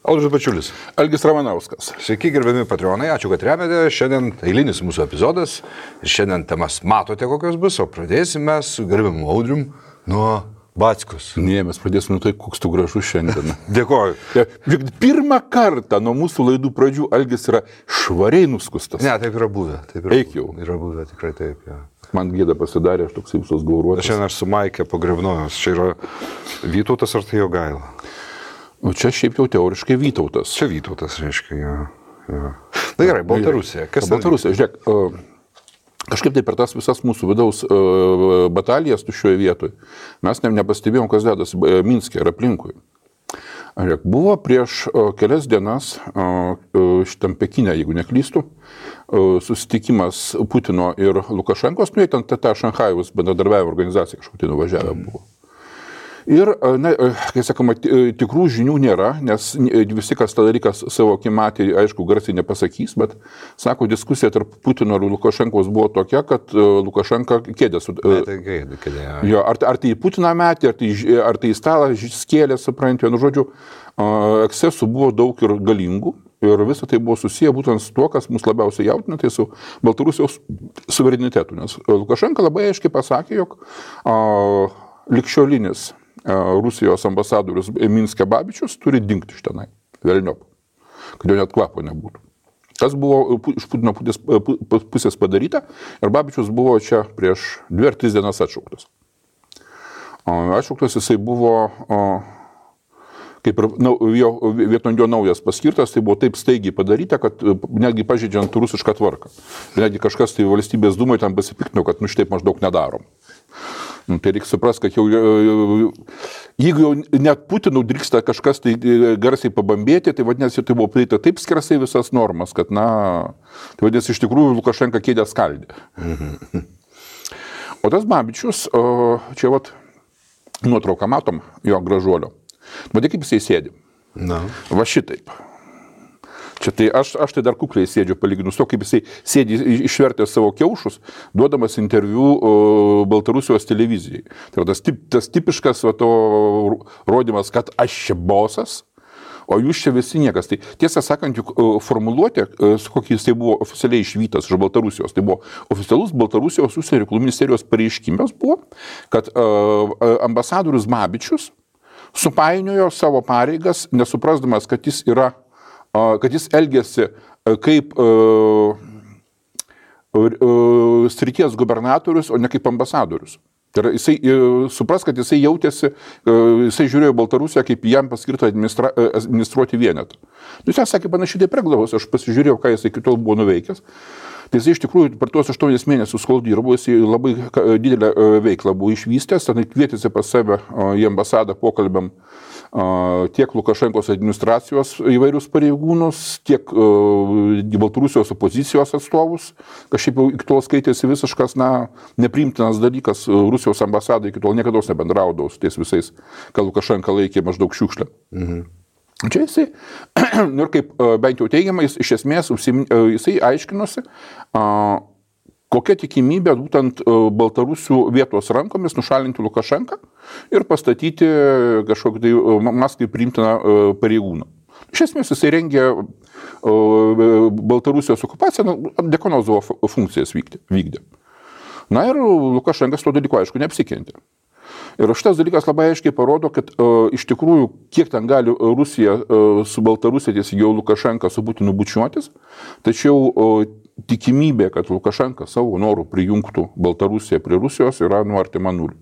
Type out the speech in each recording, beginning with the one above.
Audrius Bačiulis. Algis Ramanauskas. Sveiki, gerbiami patronai, ačiū, kad remiate. Šiandien eilinis mūsų epizodas ir šiandien temas matote, kokios bus, o pradėsime su gerbiamu Audrium nuo Backos. Ne, mes pradėsime nuo tai, koks tu gražus šiandien. Dėkoju. Pirmą kartą nuo mūsų laidų pradžių Algis yra švariai nuskustas. Ne, taip yra buvę. Eik jau. Yra buvę, tikrai taip. Ja. Man gėda pasidarė, aš toks visos gauruotas. Šiandien aš su Maike pagrebnojus. Čia yra Vytautas ar tai Jogaila? O čia šiaip jau teoriškai Vytautas. Čia Vytautas, reiškia, ja. Na gerai, Baltarusija. Kas Baltarusija, žiūrėk, kažkaip tai per tas visas mūsų vidaus batalijas šioje vietoje mes nepastebėjom, kas dedas Minske ir aplinkui. Žiūrėk, buvo prieš kelias dienas šitam Pekine, jeigu neklystu, susitikimas Putino ir Lukašenkos, nu jie ten ta Šanchajaus bendradarbiavimo organizacija kažkokia nuvažiavę buvo. Ir, kai sakoma, tikrų žinių nėra, nes visi, kas tą dalyką savo akimi matė, aišku, garsiai nepasakys, bet, sako, diskusija tarp Putino ir Lukašenkos buvo tokia, kad Lukašenka kėdė su... Jo, ar tai į Putiną metė, ar tai į stalą skėlė, suprantu, nu, žodžiu, ekscesų buvo daug ir galingų. Ir visą tai buvo susiję būtent su tuo, kas mus labiausiai jaudina, tai su Baltarusijos suverenitetu. Nes Lukašenka labai aiškiai pasakė, jog ligšiolinis Rusijos ambasadorius Minske Babičius turi dingti iš tenai, velniop, kad jo net kvapo nebūtų. Tas buvo iš Putino pusės padaryta ir Babičius buvo čia prieš 2 ar 3 dienas atšauktas. Atšauktas jisai buvo, kaip ir vietoj jo naujas paskirtas, tai buvo taip staigiai padaryta, kad netgi pažeidžiant rusišką tvarką. Netgi kažkas tai valstybės dūmai tam pasipiktino, kad šitaip maždaug nedarom. Tai reikia suprasti, kad jeigu jau net Putinų drįksta kažkas tai garsiai pabambėti, tai vadinasi, tai buvo prieita taip skersai visas normas, kad, tai vadinasi, iš tikrųjų Lukašenka kėdę skaldė. O tas Babičius, čia nuotrauką matom, jo gražuolio. Matai, kaip jisai sėdi. Va šitaip. Čia tai aš tai dar kukliai sėdžiu palyginus to, kaip jisai sėdi išvertęs savo kiaušus, duodamas interviu Baltarusijos televizijai. Tai tas tipiškas rodymas, kad aš čia bosas, o jūs čia visi niekas. Tai tiesą sakant, juk formuluotė, su kokį jisai buvo oficialiai išvytas iš Baltarusijos, tai buvo oficialus Baltarusijos užsienio reikalų ministerijos pareiškimas buvo, kad ambasadorius Babičius supainiojo savo pareigas, nesuprasdamas, kad jis elgėsi kaip srities gubernatorius, o ne kaip ambasadorius. Tai yra, jisai supras, kad jisai jautėsi, jisai žiūrėjo Baltarusiją kaip jam paskirtą administruoti vienetą. Jis sakė panašiai taip preglavos, aš pasižiūrėjau, ką jisai iki tol buvo nuveikęs. Tai jisai iš tikrųjų per tuos 8 mėnesius, kol dirbo, jisai labai didelę veiklą buvo išvystęs, ten kvietėsi pas save į ambasadą pokalbiam tiek Lukašenkos administracijos įvairius pareigūnus, tiek Baltarusijos opozicijos atstovus, kas šiaip jau iki tol skaitėsi visiškas, nepriimtinas dalykas, Rusijos ambasada iki tol niekada nebendraudavo su ties visais, ką Lukašenka laikė maždaug šiukšlę. Čia jisai, ir kaip bent jau teigiamai, iš esmės jisai aiškinosi, kokia tikimybė būtent Baltarusių vietos rankomis nušalinti Lukašenką ir pastatyti kažkokį tai Maskvai priimtiną pareigūną. Iš esmės jisai rengė Baltarusijos okupaciją, Dekonozovo funkcijas vykdė. Na ir Lukašenkas to dalyko aišku neapsikentė. Ir šitas dalykas labai aiškiai parodo, kad iš tikrųjų, kiek ten gali Rusija su Baltarusija, tiesiog jau Lukašenka su Putinu bučiuotis, tačiau tikimybė, kad Lukašenka savo norų prijungtų Baltarusiją prie Rusijos yra artima nuliui.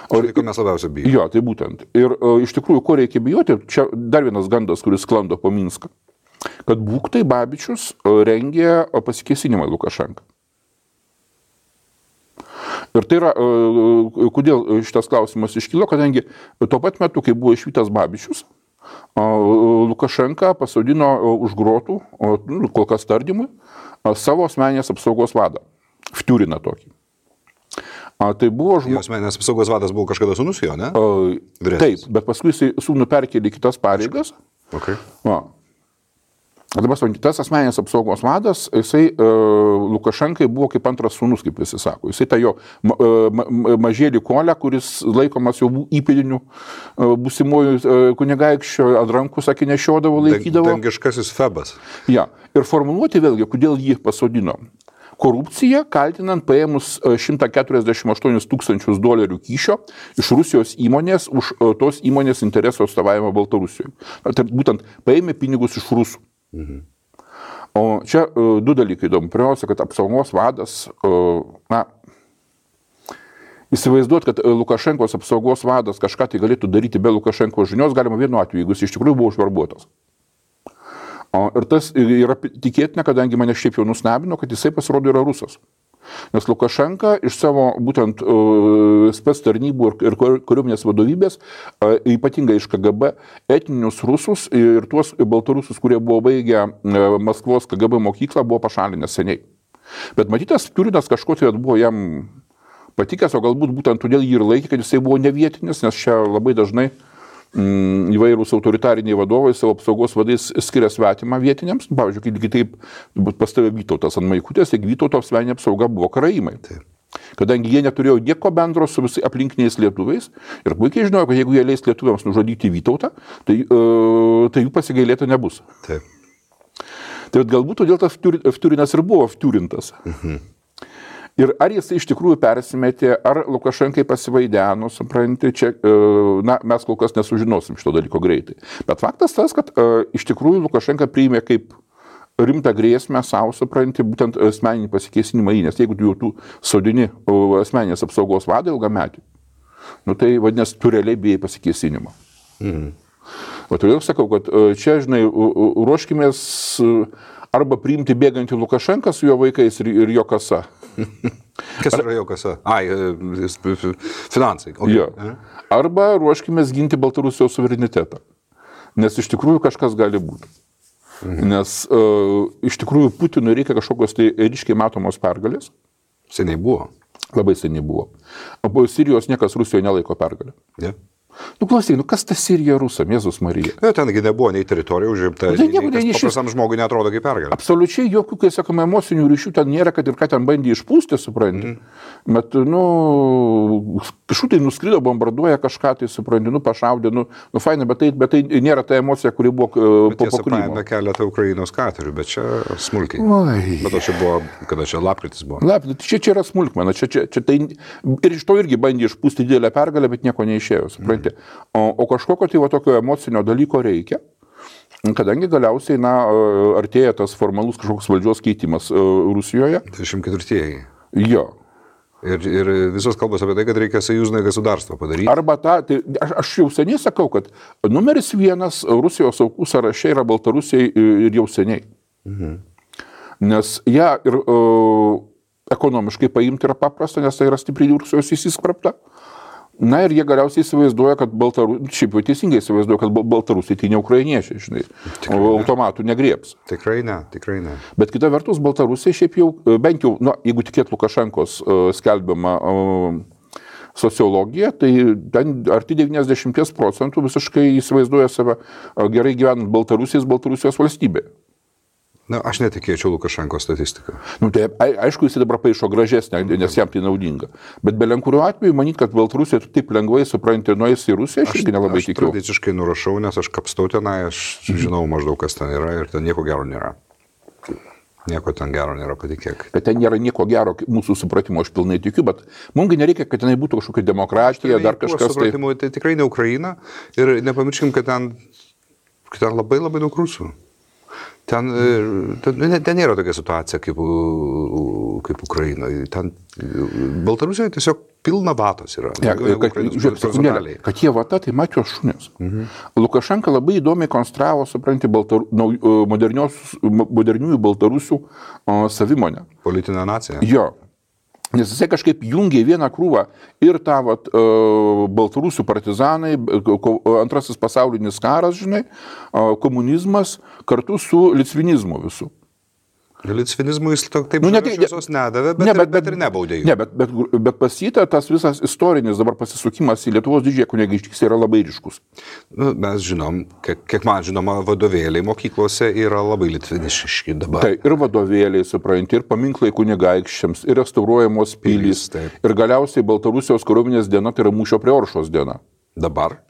Tai ko mes labiausiai bijome. Jo, tai būtent. Ir iš tikrųjų, ko reikia bijoti, čia dar vienas gandas, kuris sklando po Minską, kad būktai Babičius rengė pasikėsinimą Lukašenką. Ir tai yra, kodėl šitas klausimas iškilo, kadangi tuo pat metu, kai buvo išvytas Babičius, Lukašenka pasodino už grotų, kol kas tardymui, savo asmeninės apsaugos vadą, Vtiuriną tokį. Tai buvo asmeninės apsaugos vadas buvo kažkada sūnus jo, ne? Taip, bet paskui jisai sūnų perkėlė kitas pareigas. Okay. Dabar tas asmeninės apsaugos vadas, jisai Lukašenkai buvo kaip antras sūnus, kaip visi sako. Jisai tą jo mažėlį Kolę, kuris laikomas jau įpėdiniu būsimųjų kunigaikščio, ant rankų, sakė, nešiodavo, laikydavo. Dangiškasis Febas. Ja. Ir formuluoti vėlgi, kodėl jį pasodino. Korupcija, kaltinant paėmus $148 000 kyšio iš Rusijos įmonės už tos įmonės interesų atstovavimą Baltarusijoje. Tai būtent paėmė pinigus iš rusų. O čia du dalykai įdomu. Pirmiausia, kad apsaugos vadas, įsivaizduot, kad Lukašenkos apsaugos vadas kažką tai galėtų daryti be Lukašenkos žinios, galima vienu atveju, jeigu jis iš tikrųjų buvo užverbuotas. Ir tas yra tikėtina, kadangi mane šiaip jau nustebino, kad jisai pasirodo yra rusas. Nes Lukašenka iš savo būtent spec tarnybų ir kariuomenės vadovybės, ypatingai iš KGB, etninius rusus ir tuos baltarusus, kurie buvo baigę Maskvos KGB mokyklą, buvo pašalinęs seniai. Bet matytas Turinas kažko tai buvo jam patikęs, o galbūt būtent todėl jį ir laikė, kad jisai buvo nevietinis, nes čia labai dažnai įvairūs autoritariniai vadovai savo apsaugos vadais skiria svetimą vietiniams. Pavyzdžiui, kitaip pas tave Vytautas ant Maikutės, tik Vytauto asmeninė apsauga buvo karaimai. Taip. Kadangi jie neturėjo nieko bendro su visai aplinkiniais lietuviais ir puikiai žinojo, kad jeigu jie leis lietuviams nužudyti Vytautą, tai jų pasigailėta nebus. Taip. Tai galbūt todėl tas Turinas ir buvo vturintas. Ir ar jis iš tikrųjų persimetė, ar Lukašenkai pasivaideno, supranti, čia, mes kol kas nesužinosim šito dalyko greitai. Bet faktas tas, kad iš tikrųjų Lukašenka priėmė kaip rimtą grėsmę savo, supranti, būtent asmeninį pasikėsinimą į, nes jeigu tu sodini asmeninės apsaugos vadą ilgametį, tai vadinasi, tu realiai bijai pasikėsinimą. O todėl sakau, kad čia, žinai, ruoškimės arba priimti bėgantį Lukašenką su jo vaikais ir jo kasa. Kas yra jo kasa? Finansai. Okay. Jo. Arba ruoškimės ginti Baltarusijos suverenitetą. Nes iš tikrųjų kažkas gali būti. Nes iš tikrųjų Putinui reikia kažkokios tai ryškiai matomos pergalės. Seniai buvo. Labai seniai buvo. O Sirijos niekas Rusijoje nelaiko pergalę. Yeah. Klausyk, kas ta Sirija rusam, Jėzus Marija? Tengi nebuvo nei teritorija užimta, nei paprastam žmogui neatrodo kaip pergalė. Absoliučiai jokių, kai sakome, emocinių ryšių ten nėra, kad ir ką ten bandė išpūsti, supranti. Bet, kažkur tai nuskrido, bombarduoja kažką, tai supranti, pašaudė, fainai, bet tai nėra ta emocija, kuri buvo po Krymo. Paėmė keletą Ukrainos katerių, bet čia smulkiai. Bet čia buvo, kada čia lapkritis buvo. Lapkritis, čia yra smulkmena, čia tai ir iš to irgi bandė išpūsti didelę pergalę, bet nieko neišėjo, supranti. O kažkokio tai tokio emocinio dalyko reikia, kadangi galiausiai, artėja tas formalus kažkoks valdžios keitimas Rusijoje. 24-ieji. Jo. Ir visos kalbos apie tai, kad reikia союзное государство padaryti. Arba aš jau seniai sakau, kad numeris 1 Rusijos aukų sąraše yra Baltarusija ir jau seniai. Nes ją ir ekonomiškai paimti yra paprasta, nes tai yra stipriai Rusijos įsiskrapta. Ir jie galiausiai įsivaizduoja, kad šiaip jau teisingai įsivaizduoja, kad Baltarusiai tai ne ukrainiečiai, žinai, automatų negrieps. Tikrai ne. Bet kita vertus, Baltarusiai šiaip jau, bent jau, jeigu tikėt Lukašenkos skelbiama sociologija, tai ten arti 90% visiškai įsivaizduoja save gerai gyvenant Baltarusijos valstybėje. Aš netikėčiau Lukašenkos statistiką. Tai aišku, jis dabar paišo gražesnę, nes jam tai naudinga. Bet belenkuriu atveju manyti, kad Baltarusija taip lengvai supranti nueis į Rusiją, aš irgi nelabai tikiu. Aš tradiciškai nurašau, nes aš kapstau tenai, aš žinau maždaug, kas ten yra ir ten nieko gero nėra. Nieko ten gero nėra, patikėk. Bet ten nėra nieko gero, mūsų supratimo aš pilnai tikiu, bet mums nereikia, kad tenai būtų kažkokia demokratija, dar kažkas. Tai tikrai ne Ukraina ir nepamirškim, kad ten labai labai daug rusų. Ten nėra tokia situacija kaip Ukrainoje. Baltarusijoje tiesiog pilna vatos yra. Kad jie vata, tai matė šunės. Lukašenka labai įdomiai konstravo, supranti, moderniųjų Baltarusių savimonę. Politinę naciją. Jo. Nes jisai kažkaip jungia vieną krūvą ir tą Baltarusių partizanai, antrasis pasaulinis karas, žinai, komunizmas kartu su litvinizmu visų. Litvinizmui jis taip šviesos nedavė, bet ir nebaudė jų. Ne, bet pas jį tas visas istorinis dabar pasisukimas į Lietuvos didžiąją kunigaikštystę yra labai ryškus. Mes žinom, kiek man žinoma, vadovėliai mokyklose yra labai litviniški dabar. Tai ir vadovėliai, supranti, ir paminklai kunigaikščiams, ir restauruojamos pilys, ir galiausiai Baltarusijos kariuomenės diena, tai yra mūšio prie Oršos diena. Dabar?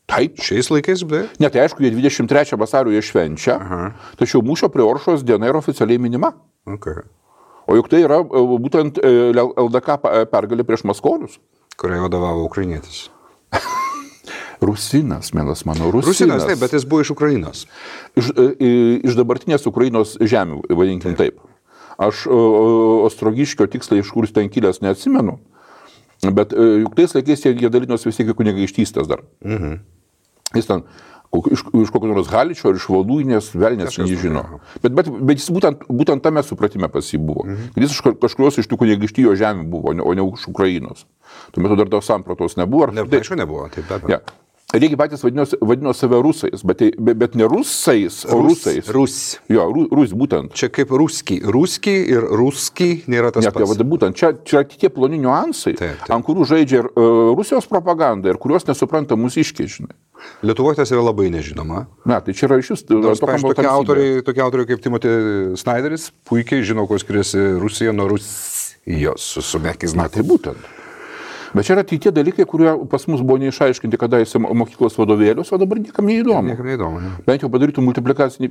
Taip. Šiais laikais, beje? Ne, tai aišku, jie 23 vasario jie švenčia, tačiau mūšio prie Oršos diena yra oficialiai minima. Okay. O juk tai yra būtent LDK pergalė prieš maskolius. Kuriai vadovavo ukrainietis. Rusinas, mielas mano, Rusinas, taip, bet jis buvo iš Ukrainos. Iš dabartinės Ukrainos žemių, vadinkim taip. Aš Ostrogiškio tiksliai iš kur ten kilęs neatsimenu, bet juk tais laikais jie dalinosi vis tiek kunigaikštystės dar. Jis ten iš kokio nors Haličio ar iš Voluinės, velnės nežino. Bet jis būtent tame supratime pas jį buvo. Jis iš kažkurios iš tų kunigaikštijos žemių buvo, o ne iš Ukrainos. Tuo metu dar tos sampratos nebuvo. Aišku, nebuvo, taip be abejo. Reikia patys vadino save rusais, bet ne rusais, o rusais. Jo, rus būtent. Čia kaip ruski. Ruski ir ruski nėra tas pats. Būtent, čia tie ploni niuansai, ant kurių žaidžia ir Rusijos propaganda, ir kurios nesupranta mūsiškiai, žinai. Lietuvoje tas yra labai nežinoma. Na, tai čia yra iš vis... Tokie autoriai kaip Timothy Snyderis puikiai žino, kuo skiriasi Rusija nuo Rusijos su mekiais. Na, tai būtent. Bet čia yra tie dalykai, kurie pas mus buvo neišaiškinti kadaise mokyklos vadovėlius, o dabar niekam neįdomu. Ne. Bent jau padarytų multiplikacinį,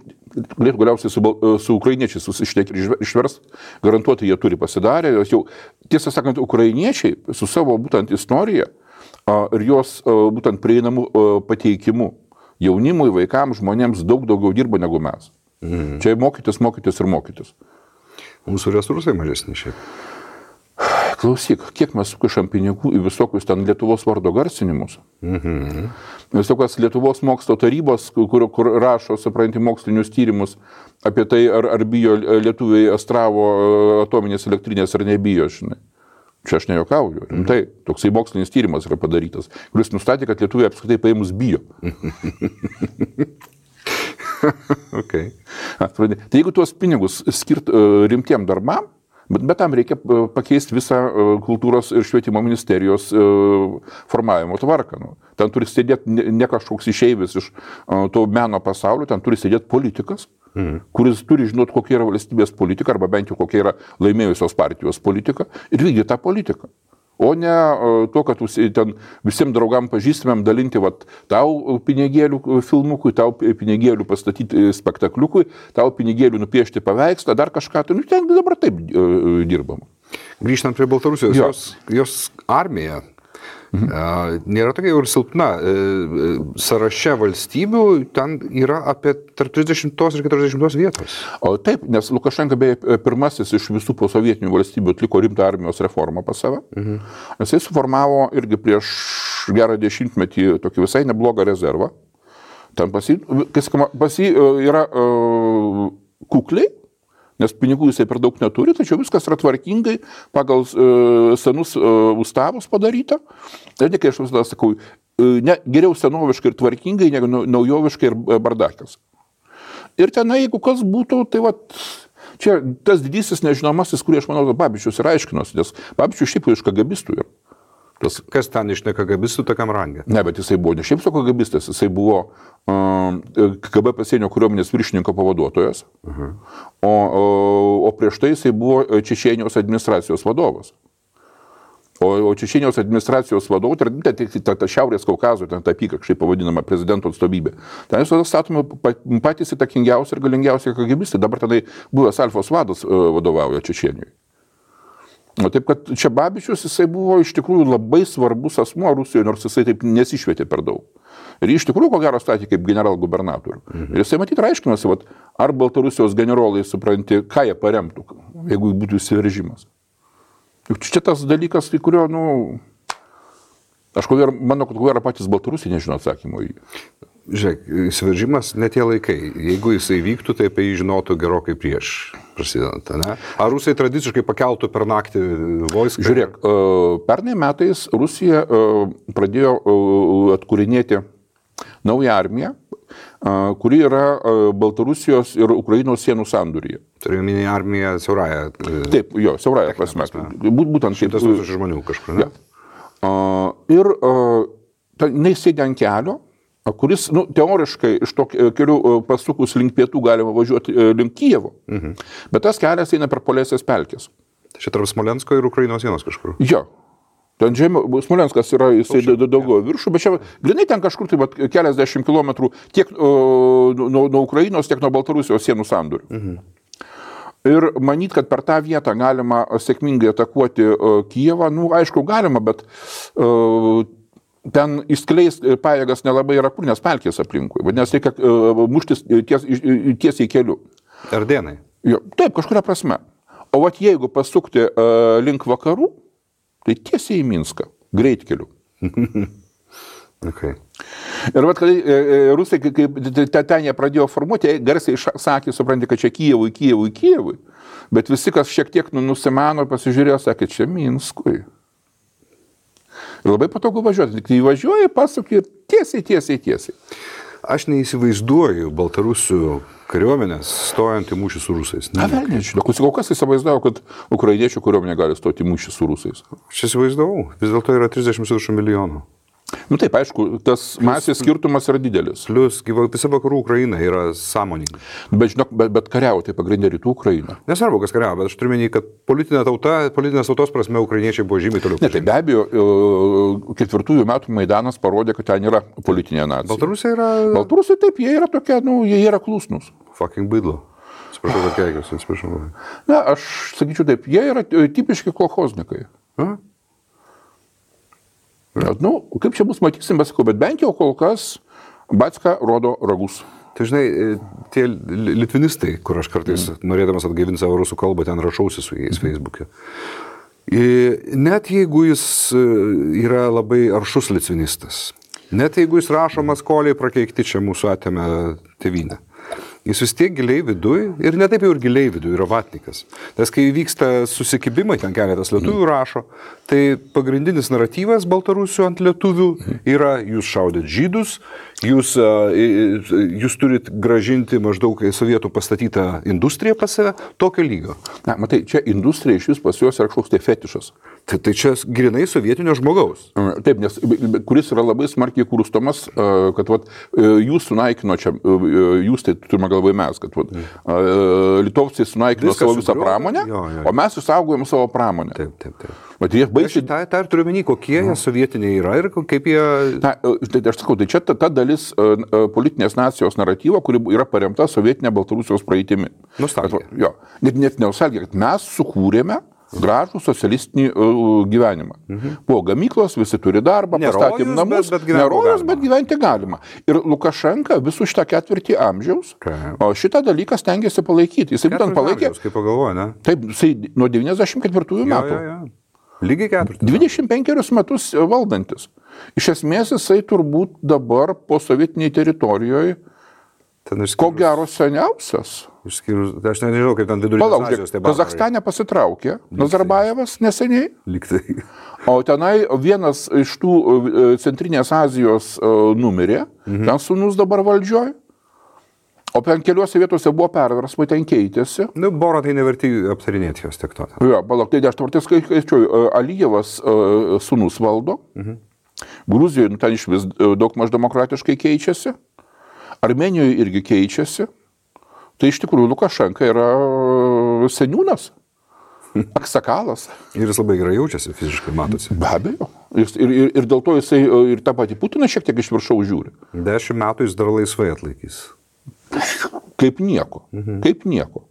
galėtų galiausiai su ukrainiečiais susišnekti ir išverst, garantuoti jie turi pasidarę. Jau, tiesą sakant, ukrainiečiai su savo būtent istorija ir jos būtent prieinamų pateikimu jaunimui, vaikams, žmonėms daug daugiau dirba negu mes. Čia mokytis. Mūsų resursai mažesni šiaip. Klausyk, kiek mes sukišam pinigų į visokius ten Lietuvos vardo garsinimus. Visokios Lietuvos mokslo tarybos, kur rašo, supranti, mokslinius tyrimus apie tai, ar bijo lietuviai Astravo atominės elektrinės ar nebijo, žinai. Čia aš nejokauju. Tai toksai mokslinis tyrimas yra padarytas, kuris nustatė, kad lietuviai apskritai paėmus bijo. Okay. Tai jeigu tuos pinigus skirt rimtiem darbam, bet tam reikia pakeisti visą kultūros ir švietimo ministerijos formavimo tvarką. Ten turi sėdėti ne kažkoks išeivis iš to meno pasaulio, ten turi sėdėti politikas, kuris turi žinoti, kokia yra valstybės politika, arba bent jau kokia yra laimėjusios partijos politika, ir vykdyti tą politiką. O ne to, kad ten visiems draugam pažįstamėm dalinti tau pinigėlių filmukui, tau pinigėlių pastatyti spektakliukui, tau pinigėlių nupiešti paveikslą, dar kažką. Ten dabar taip dirbam. Grįžtant prie Baltarusijos, jos armija nėra tokia jau ir silpna. Sąraše valstybių ten yra apie tarp 30 ir 40 vietos. O taip, nes Lukašenka beje pirmasis iš visų posovietinių valstybių atliko rimtą armijos reformą pas save. Jisai suformavo irgi prieš gerą dešimtmetį tokį visai neblogą rezervą. Ten pas jį yra kukliai, nes pinigų jisai per daug neturi, tačiau viskas yra tvarkingai pagal senus ustavus padaryta. Tai ne, kai aš visada sakau, geriau senoviškai ir tvarkingai, negu naujoviškai ir bardakas. Ir tenai, jeigu kas būtų, tai čia tas didysis nežinomasis, kurį aš manau, Babičius ir aiškinosi, nes Babičius šiaip iš kagabistų yra. Kas ten iš nekagabistų tokiam rangė? Ne, bet jisai buvo ne šiaip su kagabistas, jisai buvo KGB pasienio kariuomenės viršininko pavaduotojas, o prieš tai jisai buvo Čečėnijos administracijos vadovas. O Čečėnijos administracijos vadovų, tai Šiaurės Kaukazo, ten ta apykakščiai pavadinama prezidento atstovybė. Ten visada statoma patys įtakingiausi ir galingiausi kagabistai. Dabar tenai buvęs Alfos vadas vadovauja Čečėnijoje. O taip, kad čia Babičius, jisai buvo iš tikrųjų labai svarbus asmuo Rusijoje, nors jisai taip nesišvietė per daug. Ir iš tikrųjų, ko gero, statė kaip general-gubernatorių. Ir jisai matyt aiškinosi, ar Baltarusijos generolai supranti, ką jie paremtų, jeigu būtų įsiveržimas. Juk čia tas dalykas, į kurio, aš manau, kad ko gero patys Baltarusiai nežino atsakymo į jį. Žiūrėk, įsiveržimas ne tie laikai. Jeigu jisai vyktų, tai apie jį žinotų gerokai prieš prasidedant, ne? Ar Rusai tradiciškai pakeltų per naktį vojską? Žiūrėk, pernai metais Rusija pradėjo atkūrinėti naują armiją, kuri yra Baltarusijos ir Ukrainos sienų sandūryje. Turiu minį armiją siaurąją. Taip, jo, siaurąją prasme. Būtent 100 000 žmonių kažkur, ne? Ir jinai sėdė ant kelio, kuris, teoriškai iš to kelių pasukus link pietų galima važiuoti link Kijevo, bet tas kelias eina per Polesės pelkės. Tai čia tarp Smolensko ir Ukrainos sienos kažkur. Jo. Ten Smolenskas yra, jisai daugiau viršų, bet čia grinai ten kažkur tai keliasdešimt kilometrų tiek nuo Ukrainos, tiek nuo Baltarusijos sienų sandūrių. Ir manyt, kad per tą vietą galima sėkmingai atakuoti Kijevą, aišku, galima, bet ten įskleis pajėgas nelabai yra kur, nes pelkės aplinkui, nes reikia muštis tiesiai keliu. Ardenai. Jo, taip, kažkuria prasme. O jeigu pasukti link vakarų, tai tiesiai į Minską, greitkeliu. Okay. Ir kai rusai, kai ten jie pradėjo formuoti, garsiai sakė, supranti, kad čia Kijevui, bet visi, kas šiek tiek nusimano, pasižiūrėjo, sakė, čia Minskui. Ir labai patogu važiuoti, kai važiuoji, pasukė tiesiai. Aš neįsivaizduoju Baltarusių kariuomenės stojant į mūšį su rusais. Velniai, kol kas įsivaizduoju, kad ukrainiečių kariuomenė gali stoti į mūšį su rusais. Aš įsivaizdavau, vis dėlto yra 30 milijonų. Taip, aišku, tas masės skirtumas yra didelis. Plius, visa vakarų Ukraina yra sąmoninga. Bet kariauja, tai pagrindė rytų Ukraina. Nesvarbu, kas kariauja, bet aš turiu menį, kad politinės tautos prasme ukrainiečiai buvo žymiai toliau. Tai be abejo, 4 metų Maidanas parodė, kad ten yra politinė nacija. Baltarusai yra... Baltarusai taip, jie yra tokie, jie yra klusnūs. Fucking bydlo. Atsiprašau, kad keikiuosi, atsiprašau. Aš sakyčiau taip, jie yra tipiški kolchoznikai. Kaip čia bus, matysim, bet bent jau kol kas Batska rodo ragus. Tai žinai, tie litvinistai, kur aš kartais norėdamas atgaivinti savo rusų kalbą, ten rašausi su jais Facebook'e. Net jeigu jis yra labai aršus litvinistas, net jeigu jis rašo Maskoliai prakeikti čia mūsų atėmė tėvynę, jis vis tiek giliai viduj, ir ne taip jau ir giliai viduj, yra vatnikas. Nes kai vyksta susikibimai, ten keletas lietuvių rašo, tai pagrindinis naratyvas Baltarusių ant lietuvių yra, jūs šaudėt žydus, jūs turit gražinti maždaug sovietų pastatytą industriją pas save, tokio lygio. Matai, čia industrija iš vis pas juos yra kažkoks tai fetišas. Tai čia grinai sovietinio žmogaus. Taip, nes kuris yra labai smarkiai kurstomas, kad jūs sunaikino čia, jūs tai turime galvoje mes, kad litovciai sunaikino savo visą pramonę, o mes išsaugojom savo pramonę. Taip. Tai ir turiu menį, kokie jie sovietiniai yra ir kaip jie... Aš sakau, tai čia ta dalis politinės nacijos naratyvo, kuri yra paremta sovietinė Baltarusijos praeitimi. Nostalgija. Net nostalgija, kad mes sukūrėme gražų socialistinį gyvenimą. Po gamyklos, visi turi darbą, pastatėm namus, nerojus, bet gyventi galima. Ir Lukašenka visų šitą 4 amžiaus, o šitą dalyką stengiasi palaikyti. Jisai būtent palaikė... Kaip pagalvoja, ne? Taip, jisai nuo 94 metų. Lygiai 4. 25 metus valdantis. Iš esmės jisai turbūt dabar po sovietiniai teritorijoje ko gero seniausias. Aš nežinau, kaip ten vidurinės Azijos tai buvo. Kazachstane pasitraukė Nazarbajevas neseniai. Liktai. O tenai vienas iš tų Centrinės Azijos numirė, ten sūnus dabar valdžioj. O ten keliuose vietose buvo perversmai, ten keitėsi. Boro tai neverti aptarinėti jos tiek to. Jo, tai aš tvartės skaičiuoju, Alijevas sūnus valdo, Gruzijoje ten iš vis daug maž demokratiškai keičiasi, Armenijoje irgi keičiasi, tai iš tikrųjų Lukašenka yra seniūnas, aksakalas. Ir jis labai gerai jaučiasi, fiziškai matosi. Be abejo. Ir dėl to jisai ir tą patį Putiną šiek tiek iš viršaus žiūri. 10 metų jis dar laisvai atlaikys. Kaip nieko. Kaip nieko.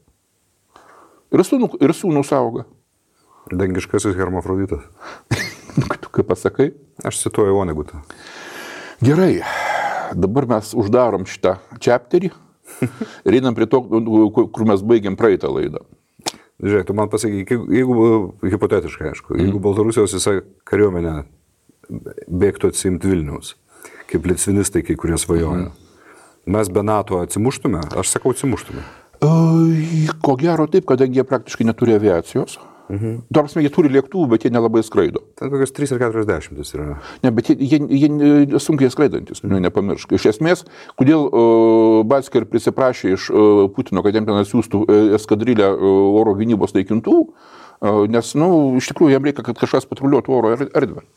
Ir sūnus auga. Dangiškasis hermafroditas. Tu kaip pasakai? Aš cituoju Vonegutą. Gerai. Dabar mes uždarom šitą chapterį ir einam prie to, kur mes baigiam praeitą laidą. Žiūrėk, tu man pasakyk, jeigu hipotetiškai, aišku, jeigu Baltarusijos visą kariuomenę bėgtų atsimti Vilniaus, kaip litvinistai, kai kurie svajoja, mes be NATO atsimuštume? Aš sakau, atsimuštume. Ko gero taip, kadangi jie praktiškai neturi aviacijos. Dar prasme, jie turi lėktuvų, bet jie nelabai skraido. Ten kokios 3 ar 40 yra. Ne, bet jie sunkiai skraidantis, nepamiršk. Iš esmės, kodėl Batsker prisiprašė iš Putino, kad jam ten atsiųstų eskadrilę oro gynybos naikintuvų, nes, iš tikrųjų, jam reikia, kad kažkas patruliuotų oro erdvę.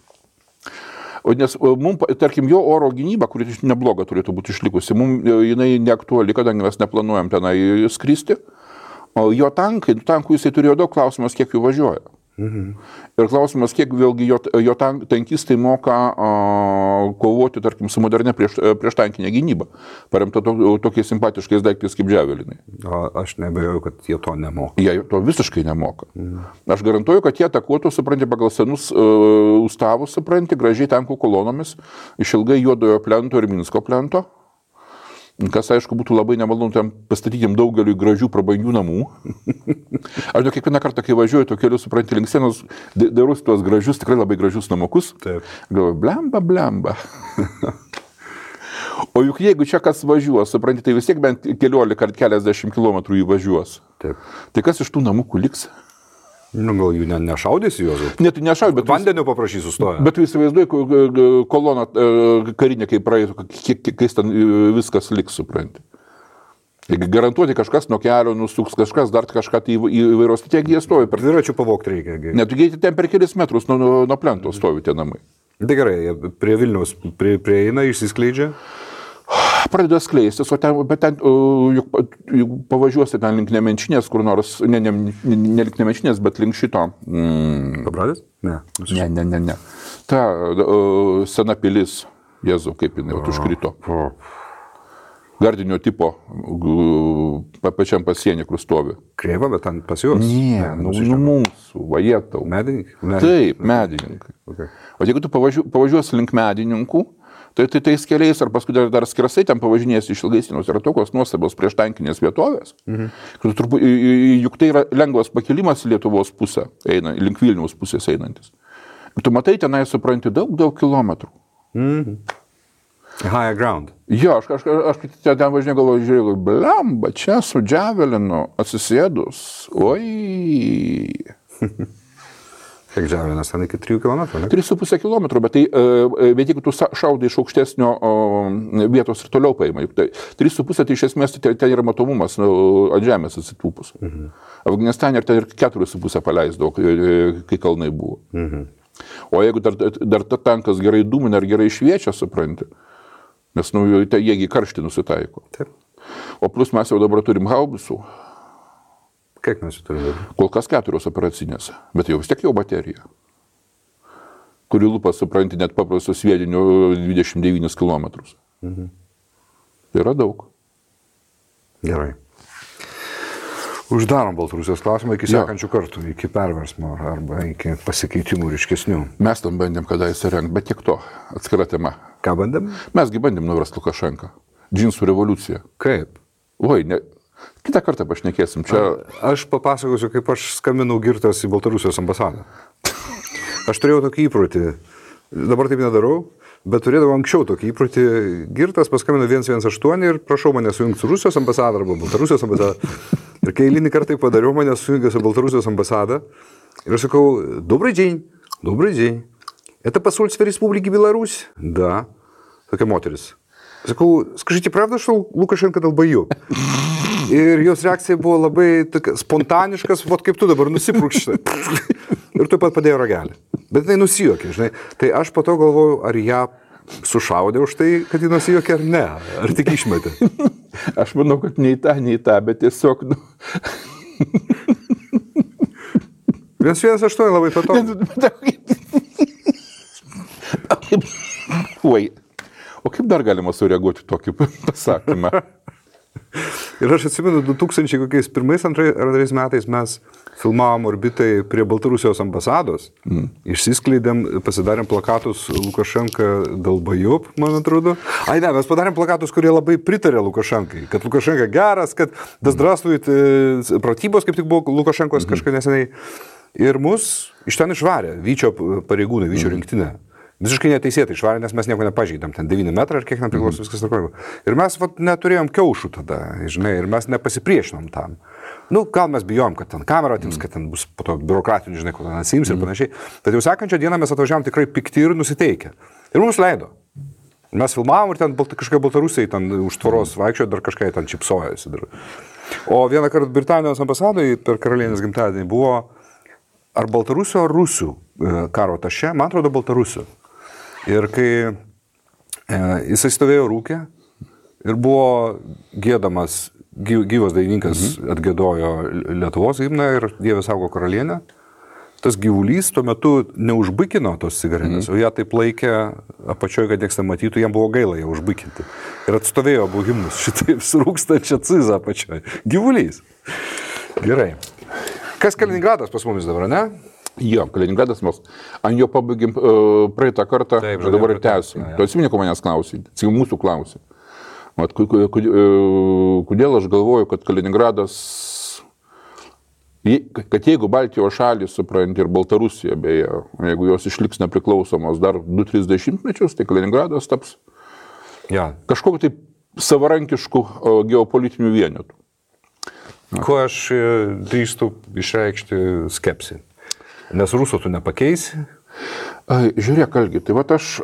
Nes mums, tarkim, jo oro gynyba, kuri nebloga turėtų būti išlikusi, mums jinai neaktuali, kadangi mes neplanuojam tenai skristi. O jo tankų jisai turėjo daug, klausimas, kiek jų važiuoja. Ir klausimas, kiek vėlgi jo tankistai moka kovoti, tarkim, su modernia prieštankinė gynyba, paremta tokiais simpatiškais daiktais kaip džiavelinai. Aš nebejoju, kad jie to nemoka. Jie to visiškai nemoka. Aš garantuoju, kad jie atakuotų, supranti, pagal senus ustavus, supranti, gražiai tankų kolonomis, išilgai Juodojo plento ir Minsko plento. Kas, aišku, būtų labai nemalonu tam pastatyti daugeliu gražių prabangių namų. Aš kiekvieną kartą, kai važiuoju to keliu, supranti, link sienos, darusi tuos gražius, tikrai labai gražius namukus. Taip. Galvoju, blemba. O juk jeigu čia kas važiuos, supranti, tai vis tiek bent 15 ar keliasdešimt kilometrų įvažiuos. Taip. Tai kas iš tų namukų liks? Gal jų nešaudys juos? Ne, tai nešaudys, bet... Vandeniu paprašys sustoja. Bet tu įsivaizduoji koloną karinę, kaip praeitų, kai ten viskas liks, supranti. Garantuoti kažkas nuo kelio nusuks, kažkas dar kažką tai įvairios, tai jie stovi. Dviračių pavogti reikia. Ne, tu ten per kelis metrus nuo plento stovi tie namai. Tai gerai, prie Vilniaus prieina, išsiskleidžia. Pradeda skleistis, bet ten, juk pavažiuosi ten link Nemenčinės, kur nors, ne link Nemenčinės, bet link šito. Pabradės? Ne. Ne. Ta sena pilis, Jėzau, kaip jinai užkrito. Gardinio tipo, pačiam pasienį, kur stovi. Kreiva, bet ten pas juos? Ne, mūsų, vajetau. Medininkai? Taip, medininkai. Okay. O jeigu tu pavažiuosi link medininkų, tai tais keliais, ar paskui dar skersai ten pavažinės iš Ilgaisienos, yra tokios nuostabios prieštankinės vietovės. Juk tai yra lengvas pakilimas į Lietuvos pusę, link Vilniaus pusės einantis. Ir tu matai tenai, supranti, daug kilometrų. High ground. Jo, aš ten važinėjau, žiūrėjau, blemba, čia su džiavelinu atsisėdus, oi. Kiek džiavelinas, ten iki 3 km, ne? 3,5 km, bet jeigu tu šaudai iš aukštesnio vietos ir toliau paima, 3,5 tai iš esmės ten yra matomumas ant žemės atsitūpus. Afganistane ir ten ir 4,5 paleisdavo, kai kalnai buvo. O jeigu dar ta tankas gerai dūmina ir gerai šviečia, supranti, nes jiegi karštį nusitaiko. Taip. O plus mes jau dabar turim haubicų. Kiek mes jų turime? Kol kas 4 operacinės, bet jau vis tiek jau baterija, kuri lupa, supranti, net paprastos sviedinių 29 km. Tai yra daug. Gerai. Uždarom Baltarusijos klausimą iki sekančių kartų, iki perversmo arba iki pasikeitimų ryškesnių. Mes tam bandėm kadaise rengti, bet tiek to, atskira tema. Ką bandėm? Mesgi bandėm nuversti Lukašenką. Džinsų revoliucija. Kaip? Oi, ne. Kitą kartą pašnekėsim. Čia... Aš papasakosiu, kaip aš skambinau girtas į Baltarusijos ambasadą. Aš turėjau tokį įprotį, dabar taip nedarau, bet turėdavau anksčiau tokį įprotį. Girtas paskambino 118 ir prašau mane sujungti su Rusijos ambasada arba Baltarusijos ambasada. Ir kai eilinį kartą padariau, mane sujungė su Baltarусijos амбассада. Ir aš sakau, добрый день. Это посольство Республики Беларусь? Да. Tokia moteris. Sakau, скажите, правда, что Лукашенко долбоёб? Ir jos reakcija buvo labai spontaniškas, vot kaip tu dabar nusiprūkšti. Ir tu pat padėjo ragelį. Bet jinai nusijuokė, žinai. Tai aš po to galvoju, ar ją sušaudė už tai, kad ji nusijuokė, ar ne. Ar tik išmetė. Aš manau, kad nei tą, bet tiesiog... 118 labai patogu. Oi. O kaip dar galima sureaguoti tokį pasakymą? Ir aš atsimenu, 2001-2002 metais mes filmavom orbitai prie Baltarusijos ambasados, išsiskleidėm, pasidarėm plakatus Lukašenka dalbajop, man atrodo. Ai ne, mes padarėm plakatus, kurie labai pritarė Lukašenkai, kad Lukašenka geras, kad dasdrastujit pratybos, kaip tik buvo Lukašenkos kažką neseniai. Ir mus iš ten išvarė Vyčio pareigūnai, Vyčio rinktinė. Visiškai neteisėtai išvarė, nes mes nieko nepažeidėm, ten 9 metrai ir kiek man priklauso viskas tvarkoja. Ir mes neturėjom kiaušų tada, žinai, ir mes nepasipriešinom tam. Nu, gal mes bijom, kad ten kamera atims, kad ten bus po to biurokratinių, žinai, ko ten atsiims ir panašiai. Bet jau sekančią dieną mes atvažiavom tikrai pikti ir nusiteikę. Ir mums leido. Mes filmavom ir ten kažkai Baltarusiai ten už tvoros vaikščiojo, dar kažkai ten čipsojasi. O vieną kartą Britanijos ambasadoje per karalienės gimtadienį buvo ar Baltarusio, ar Rusių karo atašė, man atrodo Baltarusių. Ir kai jisai stovėjo rūkė ir buvo gėdamas, gyvas dainininkas atgėdojo Lietuvos himną ir Dieve saugo karalienę, tas gyvulys tuo metu neužbikino tos cigaretės, o ją taip laikė apačioje, kad nieks nematytų, jam buvo gaila ją užbikinti. Ir atstovėjo abu himnus šitaip surūkstančią cizą apačioje. Gyvulys. Gerai. Kas Kaliningradas pas mumis dabar, ne? Jo, Kaliningradas mes ant jo pabaigėm praeitą kartą, taip, dabar ir tęsim. Tu atsimeni, ko manęs klausai, mūsų klausai. Kodėl aš galvoju, kad Kaliningradas, kad jeigu Baltijos šalys, supranti, ir Baltarusija, beje, jeigu jos išliks nepriklausomos dar 2-30 mečius, tai Kaliningradas taps kažkokiu tai savarankišku geopolitiniu vienetu. Ko aš drįstu išreikšti skepsį? Nes rusų tu nepakeisi? Žiūrėk, Algi, tai vat aš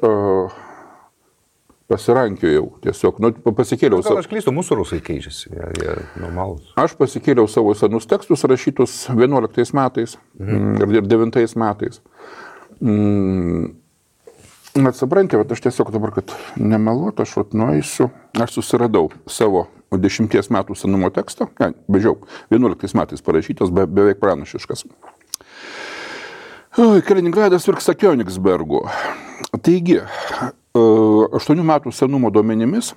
pasirankiojau tiesiog, pasikėliau savo... Gal aš klystu, mūsų rusai keičiasi, jie normalūs. Aš pasikėliau savo senus tekstus rašytus 11 metais ir 9 metais. Atsipranti, aš tiesiog dabar, kad nemeluotų, aš nueisiu, aš susiradau savo 10 metų senumo tekstą, bežiau, 11 metais parašytas, beveik pranašiškas. Kaliningradas virksta Königsbergu. Taigi, 8 metų senumo duomenimis,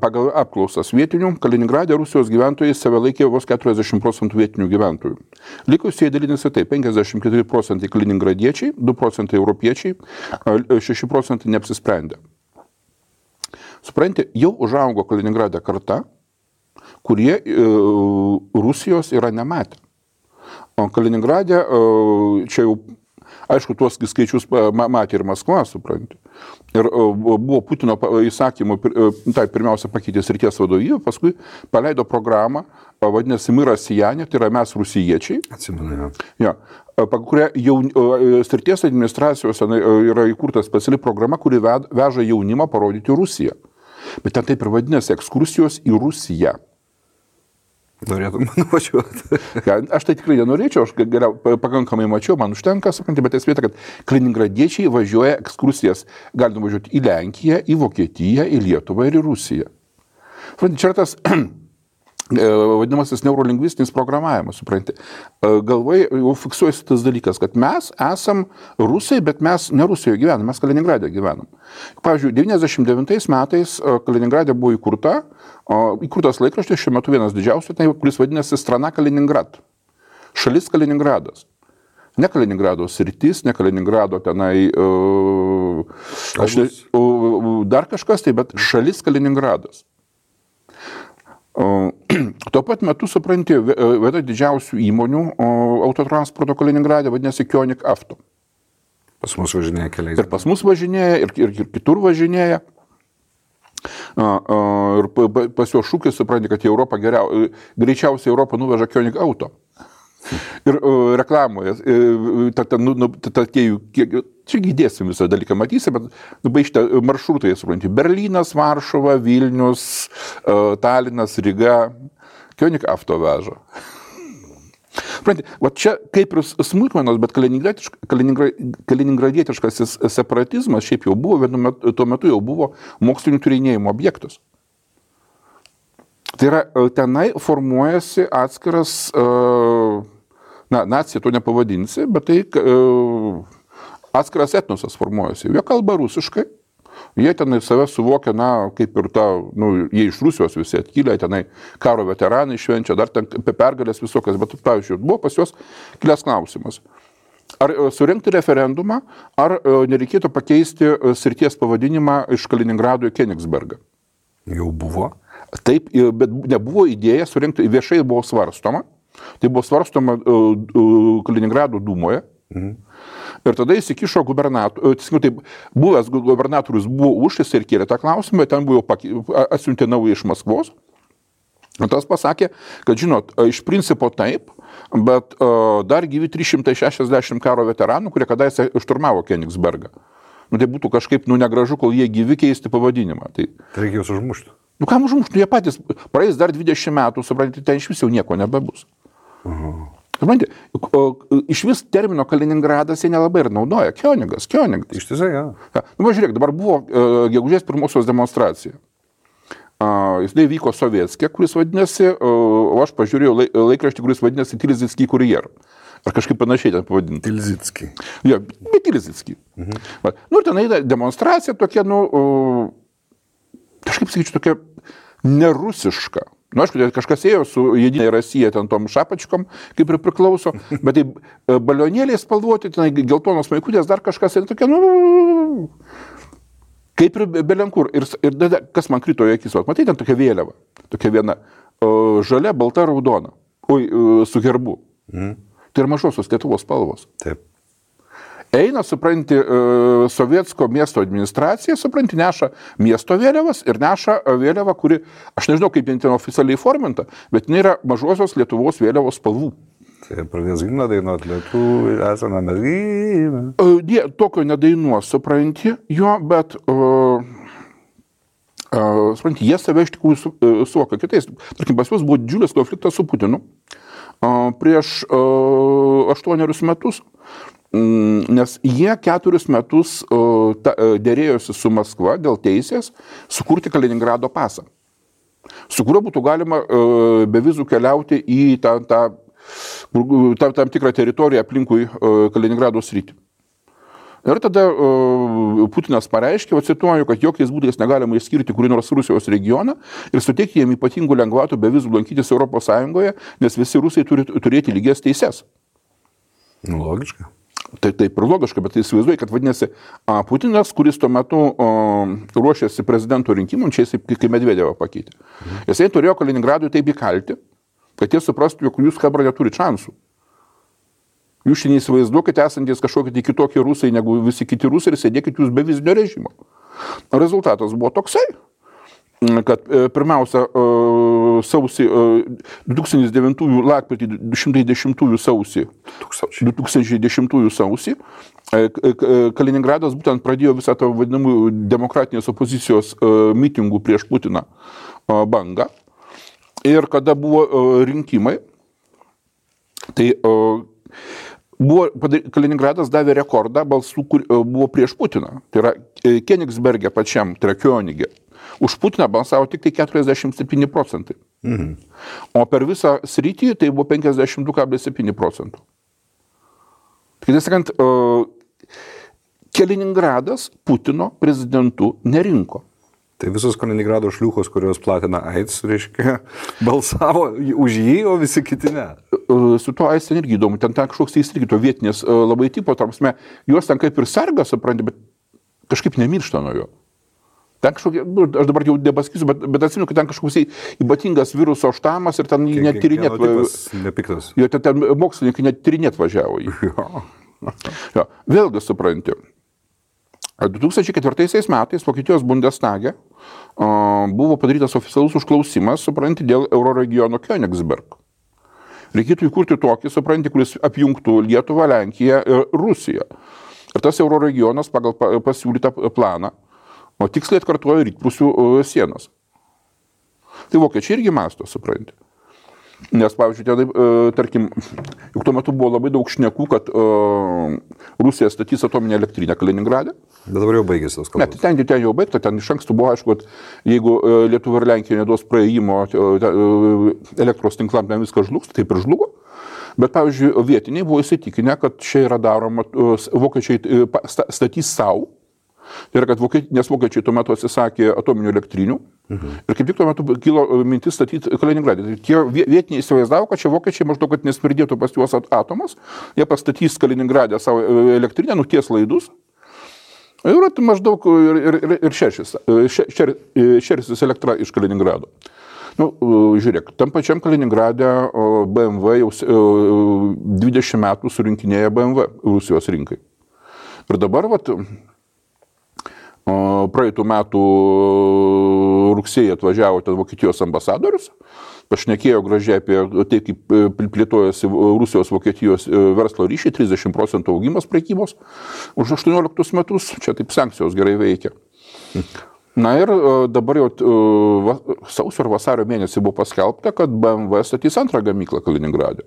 pagal apklausas vietinių, Kaliningrade Rusijos gyventojai save laikė vos 40% vietinių gyventojų. Likusieji dalinasi taip, 54% kaliningradiečiai, 2% europiečiai, 6% neapsisprendę. Supranti, jau užaugo Kaliningrade karta, kurie Rusijos yra nematę. O Kaliningrade, čia jau, aišku, tuos skaičius matė ir Maskva, supranti. Ir buvo Putino įsakymų, tai pirmiausia pakeitė srities vadovybę, paskui paleido programą, vadinasi Miras Sijanė, tai yra mes rusijiečiai. Atsimenu. Ja, pagal kurią jau srities administracijos yra įkurta speciali programa, kuri veža jaunimą parodyti Rusiją. Bet ten taip ir vadinasi ekskursijos į Rusiją. Norėtum nuvažiuoti. Aš tai tikrai nenorėčiau, aš pakankamai mačiau, man užtenka, supranti, bet esmė, kad kaliningradiečiai važiuoja ekskursijas, gali nuvažiuoti į Lenkiją, į Vokietiją, į Lietuvą ir į Rusiją. Supranti, čia tas vadinamasis neurolingvistinis programavimas, supranti. Galvai jau fiksuojasi tas dalykas, kad mes esam rusai, bet mes ne Rusijoje gyvenam, mes Kaliningrade gyvenam. Pavyzdžiui, 99 metais Kaliningrade buvo įkurtas laikraštis, šiuo metu vienas didžiausių, kuris vadinasi Strana Kaliningrad. Šalis Kaliningradas. Ne Kaliningrado sritis, ne Kaliningrado tenai, dar kažkas tai, bet šalis Kaliningradas. Tuo pat metu, supranti, viena didžiausių įmonių autotransporto Kaliningrade vadinasi Kionik Avto. Pas mus važinėja keliais. Ir pas mus važinėja, ir kitur važinėja. Ir pas jo šūkis, supranti, kad į Europą greičiausiai Europą nuveža Kionik Auto. Ir reklamoje, čia įdėsim visą dalyką, matysi, bet baigti maršrutai, supranti, Berlynas, Varšuva, Vilnius, Talinas, Ryga, Kionik Avto veža. Supranti, va čia kaip ir smulkmenos, bet kaliningradietiškas separatizmas šiaip jau buvo, tuo metu jau buvo mokslinių tyrinėjimų objektas. Tai yra, tenai formuojasi atskiras, nacija to nepavadinsi, bet tai atskiras etnosas formuojasi. Jie kalba rusiškai, jie tenai save suvokia, kaip ir jie iš Rusijos visi atkilę, tenai karo veteranai švenčia, dar ten pergalės visokias, bet, pavyzdžiui, buvo pas juos kilęs klausimas. Ar surengti referendumą, ar nereikėtų pakeisti srities pavadinimą iš Kaliningrado į Königsbergą? Jau buvo. Taip, bet nebuvo idėja surengti, viešai buvo svarstoma. Tai buvo svarstoma Kaliningrado dūmoje. Ir tada įsikišo buvęs gubernatorius buvo už, jis ir kėlė tą klausimą, ten buvo atsiuntė naują iš Maskvos. Ir tas pasakė, kad žinot, iš principo taip, bet dar gyvi 360 karo veteranų, kurie kadaise šturmavo Königsbergą. Tai būtų kažkaip negražu, kol jie gyvi keisti pavadinimą. Tai reikia juos užmušti. Kam užmušti? Jie patys praeis dar 20 metų, suprantate, ten iš vis jau nieko nebebus. Suprantate, iš vis termino Kaliningradas jie nelabai ir naudoja. Königas. Ištisai, ja. Žiūrėk, dabar buvo gegužės 1 demonstracija. Jis vyko Sovietskė, kuris vadinasi, o aš pažiūrėjau laikraštį, kuris vadinasi Tilzitský kurjer. Ar kažkaip panašiai ten pavadinti. Tilzitský. Jo, bet Tilzitský. Ir ten eina demonstracija tokia, kažkaip sakyčiau, tokia nerusiška. Aišku, kažkas ėjo su Jedinė Rasija, ten tom šapačkom, kaip ir priklauso, bet tai balionėliai spalvoti, ten geltonos maikutės, dar kažkas, ir tokia, kaip ir belenkur. Ir kas man krito į akis, matai, ten tokia vėliava, tokia viena, žalia, balta, raudona, su herbu. Tai yra mažosios Lietuvos spalvos. Taip. Eina, supranti, Sovietsko miesto administracija, supranti, neša miesto vėliavas ir neša vėliavą, kuri, aš nežinau, kaip jie ten oficialiai forminta, bet jinai yra mažosios Lietuvos vėliavos spalvų. Tai pradės gimną dainuoti Lietuvų, esame mes gimę. Jie tokio nedainuos, supranti, jo, bet supranti, jie save iš tikrųjų suvokia kitais. Tarkim, pas juos buvo didžiulis konfliktas su Putinu prieš 8 metus, nes jie 4 metus dėrėjosi su Maskva dėl teisės sukurti Kaliningrado pasą, su kuriuo būtų galima be vizų keliauti į tam tikrą teritoriją aplinkui Kaliningrado sritį. Ir tada Putinas pareiškė, cituoju, kad jokiais būdais negalima išskirti kurį nors Rusijos regioną ir suteikti jiem ypatingų lengvatų be vizų lankytis Europos Sąjungoje, nes visi rusai turi turėti lygias teises. Logiška. Tai taip ir logiška, bet tai įsivaizduoju, kad vadinasi Putinas, kuris tuo metu ruošėsi prezidento rinkimams, čia jis kaip Medvedevą pakeitė. Jisai turėjo Kaliningradui taip įkalti, kad jie suprastų, jog jūs Hebra neturi šansų. Jūs šiandien įsivaizduokite esantis kažkokie kitokie rusai negu visi kiti rusai ir sėdėkite jūs be vizinio režimo. Rezultatas buvo toksai, kad pirmiausia sausį 2009 lapkritį 210 sausį 2010 sausį Kaliningradas būtent pradėjo visą tą vadinamų demokratinės opozicijos mitingų prieš Putiną bangą. Ir kada buvo rinkimai, tai Kaliningradas davė rekordą balsų, kur buvo prieš Putiną. Tai yra Königsberge pačiam, tai yra Könige. Už Putiną balsavo tik tai 47%. O per visą sritį tai buvo 52,7%. Tai sakant, Kaliningradas Putino prezidentu nerinko. Tai visos Kaliningrado šliūchos, kurios platina AIDS, reiškia, balsavo už jį, o visi kiti ne. Su to AIDS ten irgi įdomu, ten kažkoks irgi to vietinės labai tipo, tarpsme, juos ten kaip ir sarga, supranti, bet kažkaip nemiršta nuo jo. Ten kažkokie, aš dabar jau nepasakysiu, bet atsimenu, kad ten kažkoks ypatingas viruso štamas ir ten net tyrinėt. Nepiktas. Jo, ten mokslininkai net tyrinėt važiavo jį. Jo. Vėlgi supranti. 2004 metais Vokietijos Bundestage buvo padarytas oficialus užklausimas, supranti, dėl Euroregiono Königsberg. Reikėtų įkurti tokį, supranti, kuris apjungtų Lietuvą, Lenkiją ir Rusiją. Ir tas Euroregionas pagal pasiūlytą planą, o tiksliai atkartoja rytprūsių sienas. Tai vokiečiai irgi masto, supranti. Nes, pavyzdžiui, tarkim, juk tuo metu buvo labai daug šnekų, kad Rusija statys atominę elektrinę Kaliningrade. Bet dabar jau baigėsi tos kalbos. Ne, ten jau baigta, ten iš anksto buvo aišku, kad jeigu Lietuva ir Lenkija neduos praėjimo elektros tinklam, ten viskas žlugs, taip ir žlugo. Bet, pavyzdžiui, vietiniai buvo įsitikinę, kad čia yra daroma, vokiečiai statys savo. Tai yra, nes vokiečiai tuo metu atsisakė atominių elektrinių ir kaip tik tuo metu kilo mintis statyti Kaliningradą. Tai tie vietiniai įsivaizdavo, kad čia vokiečiai maždaug, kad nesmirdėtų pas juos atomas, jie pastatys Kaliningradę savo elektrinę, nuties laidus ir maždaug ir šersis elektra iš Kaliningrado. Žiūrėk, tam pačiam Kaliningrade BMW jau 20 metų surinkinėja BMW Rusijos rinkai. Ir dabar, praeitų metų rugsėjį atvažiavo ten Vokietijos ambasadorius, pašnekėjo gražiai apie tai, kaip plėtojasi Rusijos Vokietijos verslo ryšiai, 30% augimas prekybos už 18 metus, čia taip sankcijos gerai veikia. Na ir dabar jau sausio ar vasario mėnesį buvo paskelbta, kad BMW statys antrą gamyklą Kaliningrade.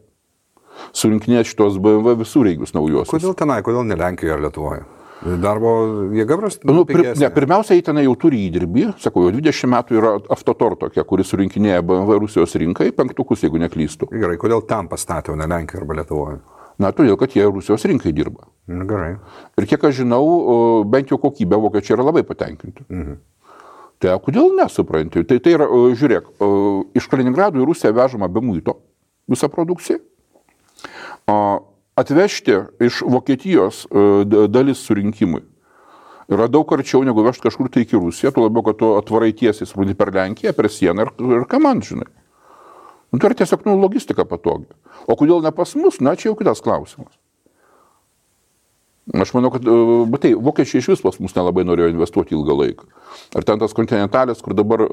Surinkinės šitos BMW visureigius naujosius. Kodėl tenai, kodėl ne Lenkijoje ar Lietuvoje? Darbo jėga prasta? Pirmiausia, jie tenai jau turi įdirbį, sakau, jau 20 metų yra Avtotor tokia, kuri surinkinėja BMW Rusijos rinkai, 5, jeigu neklystų. Gerai, kodėl ten pastatė, o ne Lenkijoje arba Lietuvoje? Na, todėl, kad jie Rusijos rinkai dirba. Gerai. Ir kiek aš žinau, bent jau kokybę vokiečiai yra labai patenkinti. Tai kodėl nesupranti? Tai yra, žiūrėk, iš Kaliningrado į Rusiją vežama be muito visą produkciją. Atvežti iš Vokietijos dalis surinkimui yra daug arčiau negu vežti kažkur tai iki Rusiją, tuo labiau, kad tu atvarai tiesiai supranti per Lenkiją, per sieną ir ką man, žinai. Tai yra tiesiog logistika patogi. O kodėl ne pas mus, na, čia jau kitas klausimas. Aš manau, kad vokiečiai iš vis pas mus nelabai norėjo investuoti ilgą laiką. Ar ten tas kontinentalis, kur dabar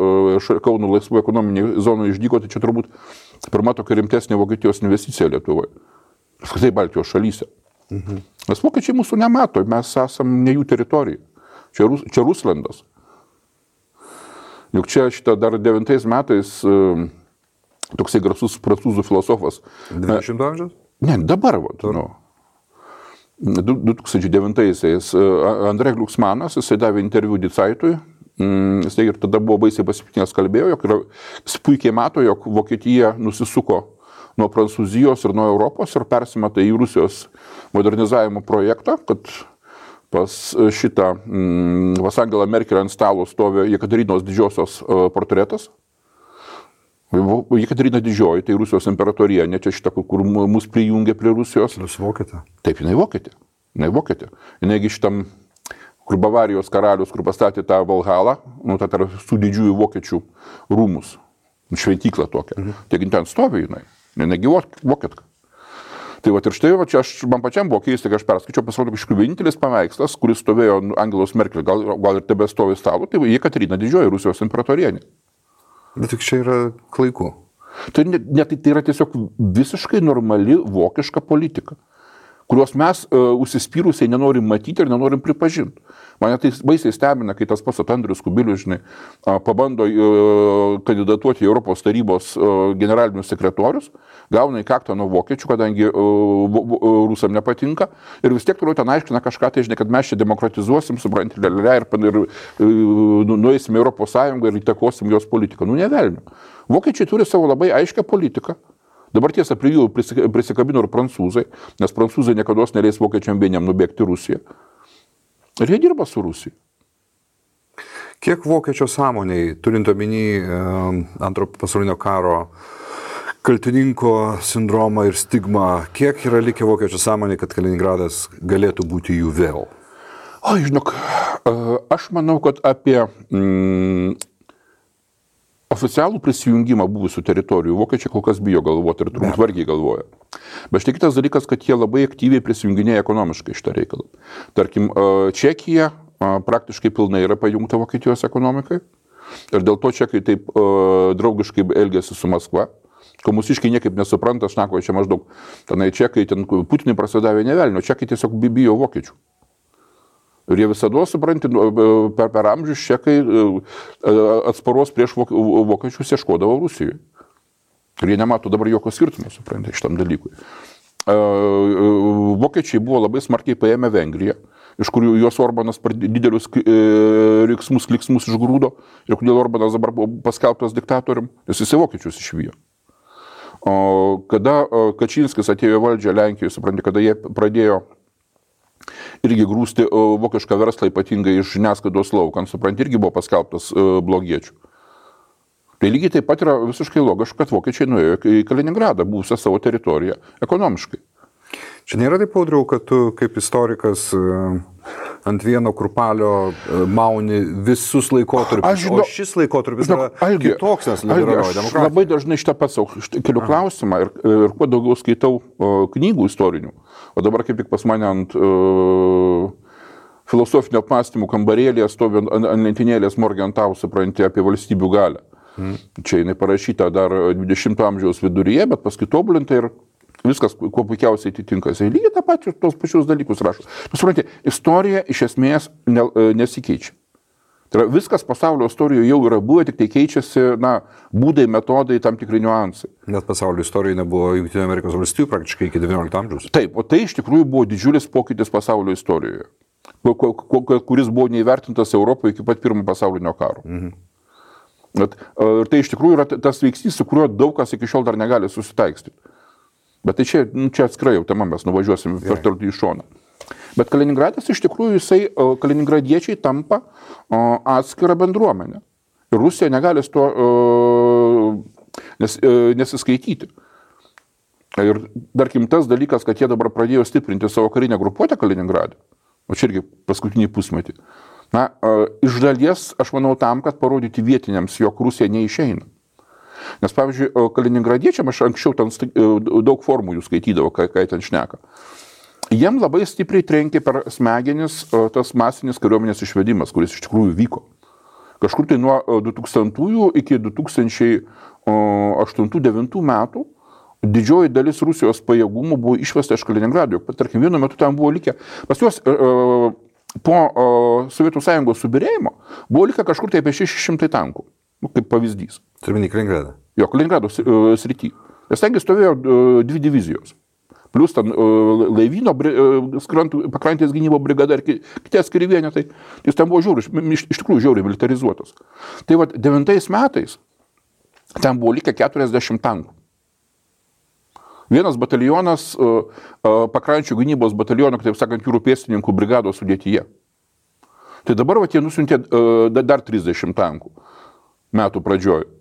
Kauno laisvų ekonominiai zonų išdygo, tai čia turbūt pirma tokia rimtesnė Vokietijos investicija Lietuvoje. Apskritai Baltijos šalyse. Nes vokiečiai mūsų nemato, mes esam ne jų teritorija. Čia Ruslandas. Juk čia šitą dar 9 metais toksai garsus prancūzų filosofas. 20 amžiaus? Ne, dabar. 2009-aisiais Andrė Glucksmanas, jisai davė interviu Die Zeitui. Jisai ir tada buvo baisiai pasipiktinęs kalbėjo, jis puikiai mato, jog Vokietija nusisuko nuo Prancūzijos ir nuo Europos ir persimeta į Rusijos modernizavimo projektą, kad pas šitą pas Angelą Merkel ant stalo stovi Jekaterinos didžiosios portretas. Jekaterina didžioji, tai Rusijos imperatorienė, čia šitą, kur mus prijungė prie Rusijos. Jūs vokietė? Taip, jinai vokietė. Jinaigi šitam, kur Bavarijos karalius, kur pastatė tą Valhalą, tai su didžiųjų vokiečių rūmus, šventyklą tokią. Taigi ten stovi jinai. Negi vokietka. Tai ir štai, man pačiam buvo keista, kai aš perskaičiau, pasirodo, kažkaip vienintelis paveikslas, kuris stovėjo Angelos Merkel, gal ir tebe stovi stalo, tai Jekaterina didžioji, Rusijos imperatorienė. Bet tik čia yra klaikų. Tai yra tiesiog visiškai normali vokiška politika, kurios mes užsispyrusiai nenorim matyti ir nenorim pripažinti. Mane tai baisiai stebina, kai tas pats Andrius Kubilius, žinai, pabando kandidatuoti į Europos tarybos generalinius sekretorius, gauna į kaktą nuo vokiečių, kadangi rusam nepatinka, ir vis tiek toliau ten aiškina kažką, tai žinai, kad mes čia demokratizuosim, supranti, ir nueisim į Europos Sąjungą ir įtakosim jos politiką. Ne velnio. Vokiečiai turi savo labai aiškę politiką. Dabar tiesa, prie jų prisikabino ir prancūzai, nes prancūzai niekada neleis vokiečiam vieniem nubėgti Rusiją. Ir jie dirba su Rusija. Kiek vokiečio sąmoniai, turint omeny Antro pasaulinio karo kaltininko sindromą ir stigmą, kiek yra likę vokiečio sąmoniai, kad Kaliningradas galėtų būti jų vėl? O, žinok, aš manau, kad apie oficialų prisijungimą buvusių teritorijų vokiečiai kol kas bijo galvoti ir turbūt vargiai galvoja. Bet štai kitas dalykas, kad jie labai aktyviai prisijunginėja ekonomiškai šitą reikalą. Tarkim, Čekija praktiškai pilnai yra pajungta Vokietijos ekonomikai ir dėl to čekai taip draugiškai elgėsi su Maskva. Ko mūsiškai niekaip nesupranta, šnako, čia maždaug tenai čekai, ten Putinui prasidavė nevelnio, čekai tiesiog bijo vokiečių. Ir jie visada, supranti, per amžius čekai atsparos prieš vokiečius ieškodavo Rusijoje. Ir jie nemato dabar jokio skirtumo, supranti, šitam dalykui. Vokiečiai buvo labai smarkiai paėmę Vengriją, iš kurių jos Orbanas didelius kliksmus išgrūdo, ir kodėl Orbanas dabar buvo paskelbtas diktatorium, nes jisai vokiečius išvijo. Kada Kačinskis atėjo valdžią Lenkijoje, supranti, kada jie pradėjo irgi grūsti vokišką verslą, ypatingai iš žiniasklaidos laukan, supranti, irgi buvo paskelbtas blogiečių. Tai lygiai taip pat yra visiškai logiška, kad vokiečiai nuėjo į Kaliningradą, buvusią savo teritoriją, ekonomiškai. Čia nėra taip, Audriau, kad tu kaip istorikas ant vieno kurpalio mauni visus laikotarpius, o šis laikotarpis yra kitoks, nes liberalioji demokratija. Aš labai dažnai šitą pats keliu klausimą ir kuo daugiau skaitau knygų istorinių, o dabar kaip tik pas mane ant filosofinio apmąstymų kambarėlėje stovi ant lentynėlės Morgenthau, supranti, apie valstybių galią. Čia jinai parašyta dar 20 amžiaus viduryje, bet paskui tobulinta ir viskas, kuo puikiausiai atitinka. Jis lygiai tą patį, tos pačius dalykus rašo. Supranti, istorija iš esmės nesikeičia. Tai yra, viskas pasaulio istorijoje jau yra buvę, tik tai keičiasi, būdai, metodai, tam tikri niuansai. Net pasaulio istorijoje nebuvo Jungtinių Amerikos valstijų praktiškai iki 19 amžiaus. Taip, o tai iš tikrųjų buvo didžiulis pokytis pasaulio istorijoje, kuris buvo neįvertintas Europoje iki pat pirmo pasaulinio karo. Ir tai iš tikrųjų yra tas veiksnys, su kuriuo daug kas iki šiol dar negali susitaikstyti. Bet tai čia atskirai jau tema, mes nuvažiuosim per toli į šoną. Bet Kaliningradas iš tikrųjų, kaliningradiečiai tampa atskirą bendruomenę. Ir Rusija negali su to nesiskaityti. Ir tarkim tas dalykas, kad jie dabar pradėjo stiprinti savo karinę grupuotę Kaliningrade, o čia irgi paskutinį pusmetį. Iš dalies, aš manau, tam, kad parodyti vietiniams, jog Rusija neišeina. Nes, pavyzdžiui, kaliningradiečiam, aš anksčiau ten daug formų jų skaitydavo, kai ten šneka. Jiem labai stipriai trenkė per smegenis tas masinis kariuomenės išvedimas, kuris iš tikrųjų vyko. Kažkur tai nuo 2000 iki 2008-2009 metų didžioji dalis Rusijos pajėgumų buvo išvesta iš Kaliningrado. Tarkim, vienu metu tam buvo likę, pas juos po Sovietų Sąjungos subirėjimo buvo likę kažkur tai apie 600 tankų, kaip pavyzdys. Turime į Kaliningradą? Jo, Kaliningrado srity. Nes tengi stovėjo 2 divizijos. Plus ten laivyno pakrantės gynybo brigada ir kiti atskiri vienetai. Jis ten buvo iš tikrųjų žiauriai militarizuotas. Tai vat 9 metais ten buvo likę 40 tankų. Vienas batalionas pakrančių gynybos bataliono, taip sakant, jūrų pėstininkų brigados sudėtyje. Tai dabar jie nusiuntė dar 30 tankų metų pradžioje.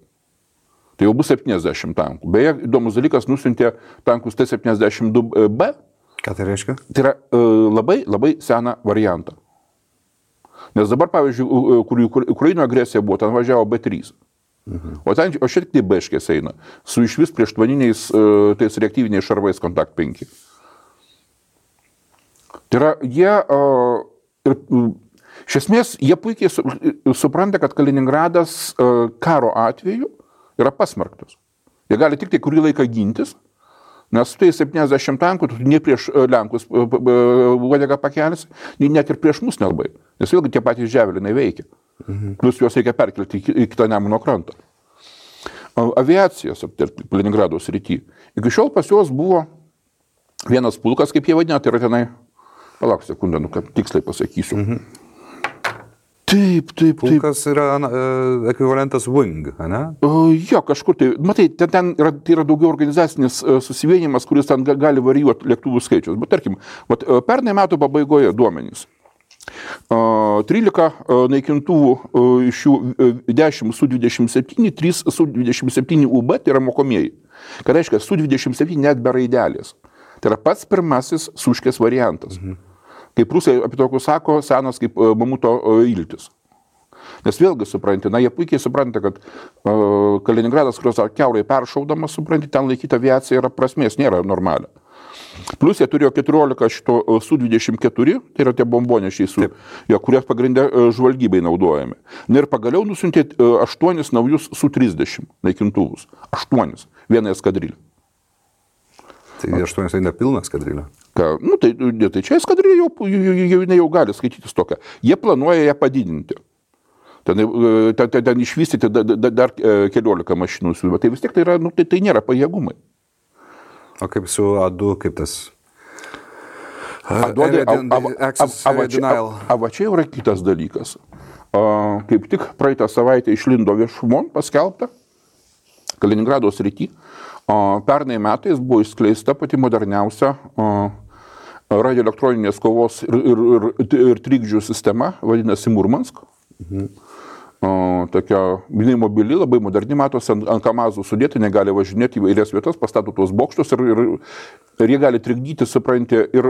Tai jau bus 70 tankų. Beje, įdomus dalykas, nusiuntė tankus T-72B. Ką tai reiškia? Tai yra labai seną variantą. Nes dabar, pavyzdžiui, kur Ukraino agresija buvo, ten važiavo B3. O šiek tiek B-škės eina, su išvis prieštvaniniais tais reaktyviniais šarvais Kontakt 5. Tai yra, iš esmės, jie puikiai supranta, kad Kaliningradas karo atveju yra pasmerktas. Jie gali tik tai kurį laiką gintis, nes tai 70 tankų, tu ne prieš Lenkus uodegą pakelsi, net ir prieš mus nelabai, nes vėlgi tie patys Ževelinai veikia. Plus juos reikia perkelti į kitą Nemuno krantą. Aviacijos Kaliningrado srity. Iki šiol pas juos buvo vienas pulkas, kaip jie vadina, tai yra tenai, palauk sekundę, kad tiksliai pasakysiu. Taip. Pulkas yra ekvivalentas Wing, ne? Jo, kažkur tai, matai, ten yra daugiau organizacinis susivienimas, kuris ten gali varijuoti lėktuvų skaičius. Bet tarkim, pernai metų pabaigoje duomenys. 13 naikintuvų, iš jų 10 Su-27, 3 Su-27 UB, tai yra mokomieji. Ką reiškia, Su-27 net be raidelės. Tai yra pats pirmasis Suškės variantas. Kaip rusai apie tokius sako, senas kaip mamuto iltis. Nes vėlgi supranti, jie puikiai supranta, kad Kaliningradas, kurios kiaurai peršaudamas, supranti, ten laikyti aviacija yra prasmės, nėra normalia. Plus jie turėjo 14 šito Su-24, tai yra tie bombonešiai, kurie pagrindė žvalgybai naudojami. Ir pagaliau nusiuntė 8 naujus Su-30 naikintuvus. 8, vieną eskadrilę. Tai 8 tai nepilna eskadrilė. Tai čia eskadrilė jau gali skaitytis tokią. Jie planuoja ją padidinti. Ten išvystyti dar 14 mašinų. Tai vis tiek tai nėra pajėgumai. O kaip su A2, kaip tas? Va čia yra kitas dalykas. Kaip tik praeitą savaitę išlindo viešumon paskelbta Kaliningrado srity. Pernai metais buvo išskleista pati moderniausia radioelektroninės kovos ir trikdžių sistema, vadinasi Murmansk. Tokia mobili, labai moderni, matosi ant kamazų sudėti, negali važinėti į vairias vietas, pastato tuos bokštus ir jie gali trikdyti, supranti, ir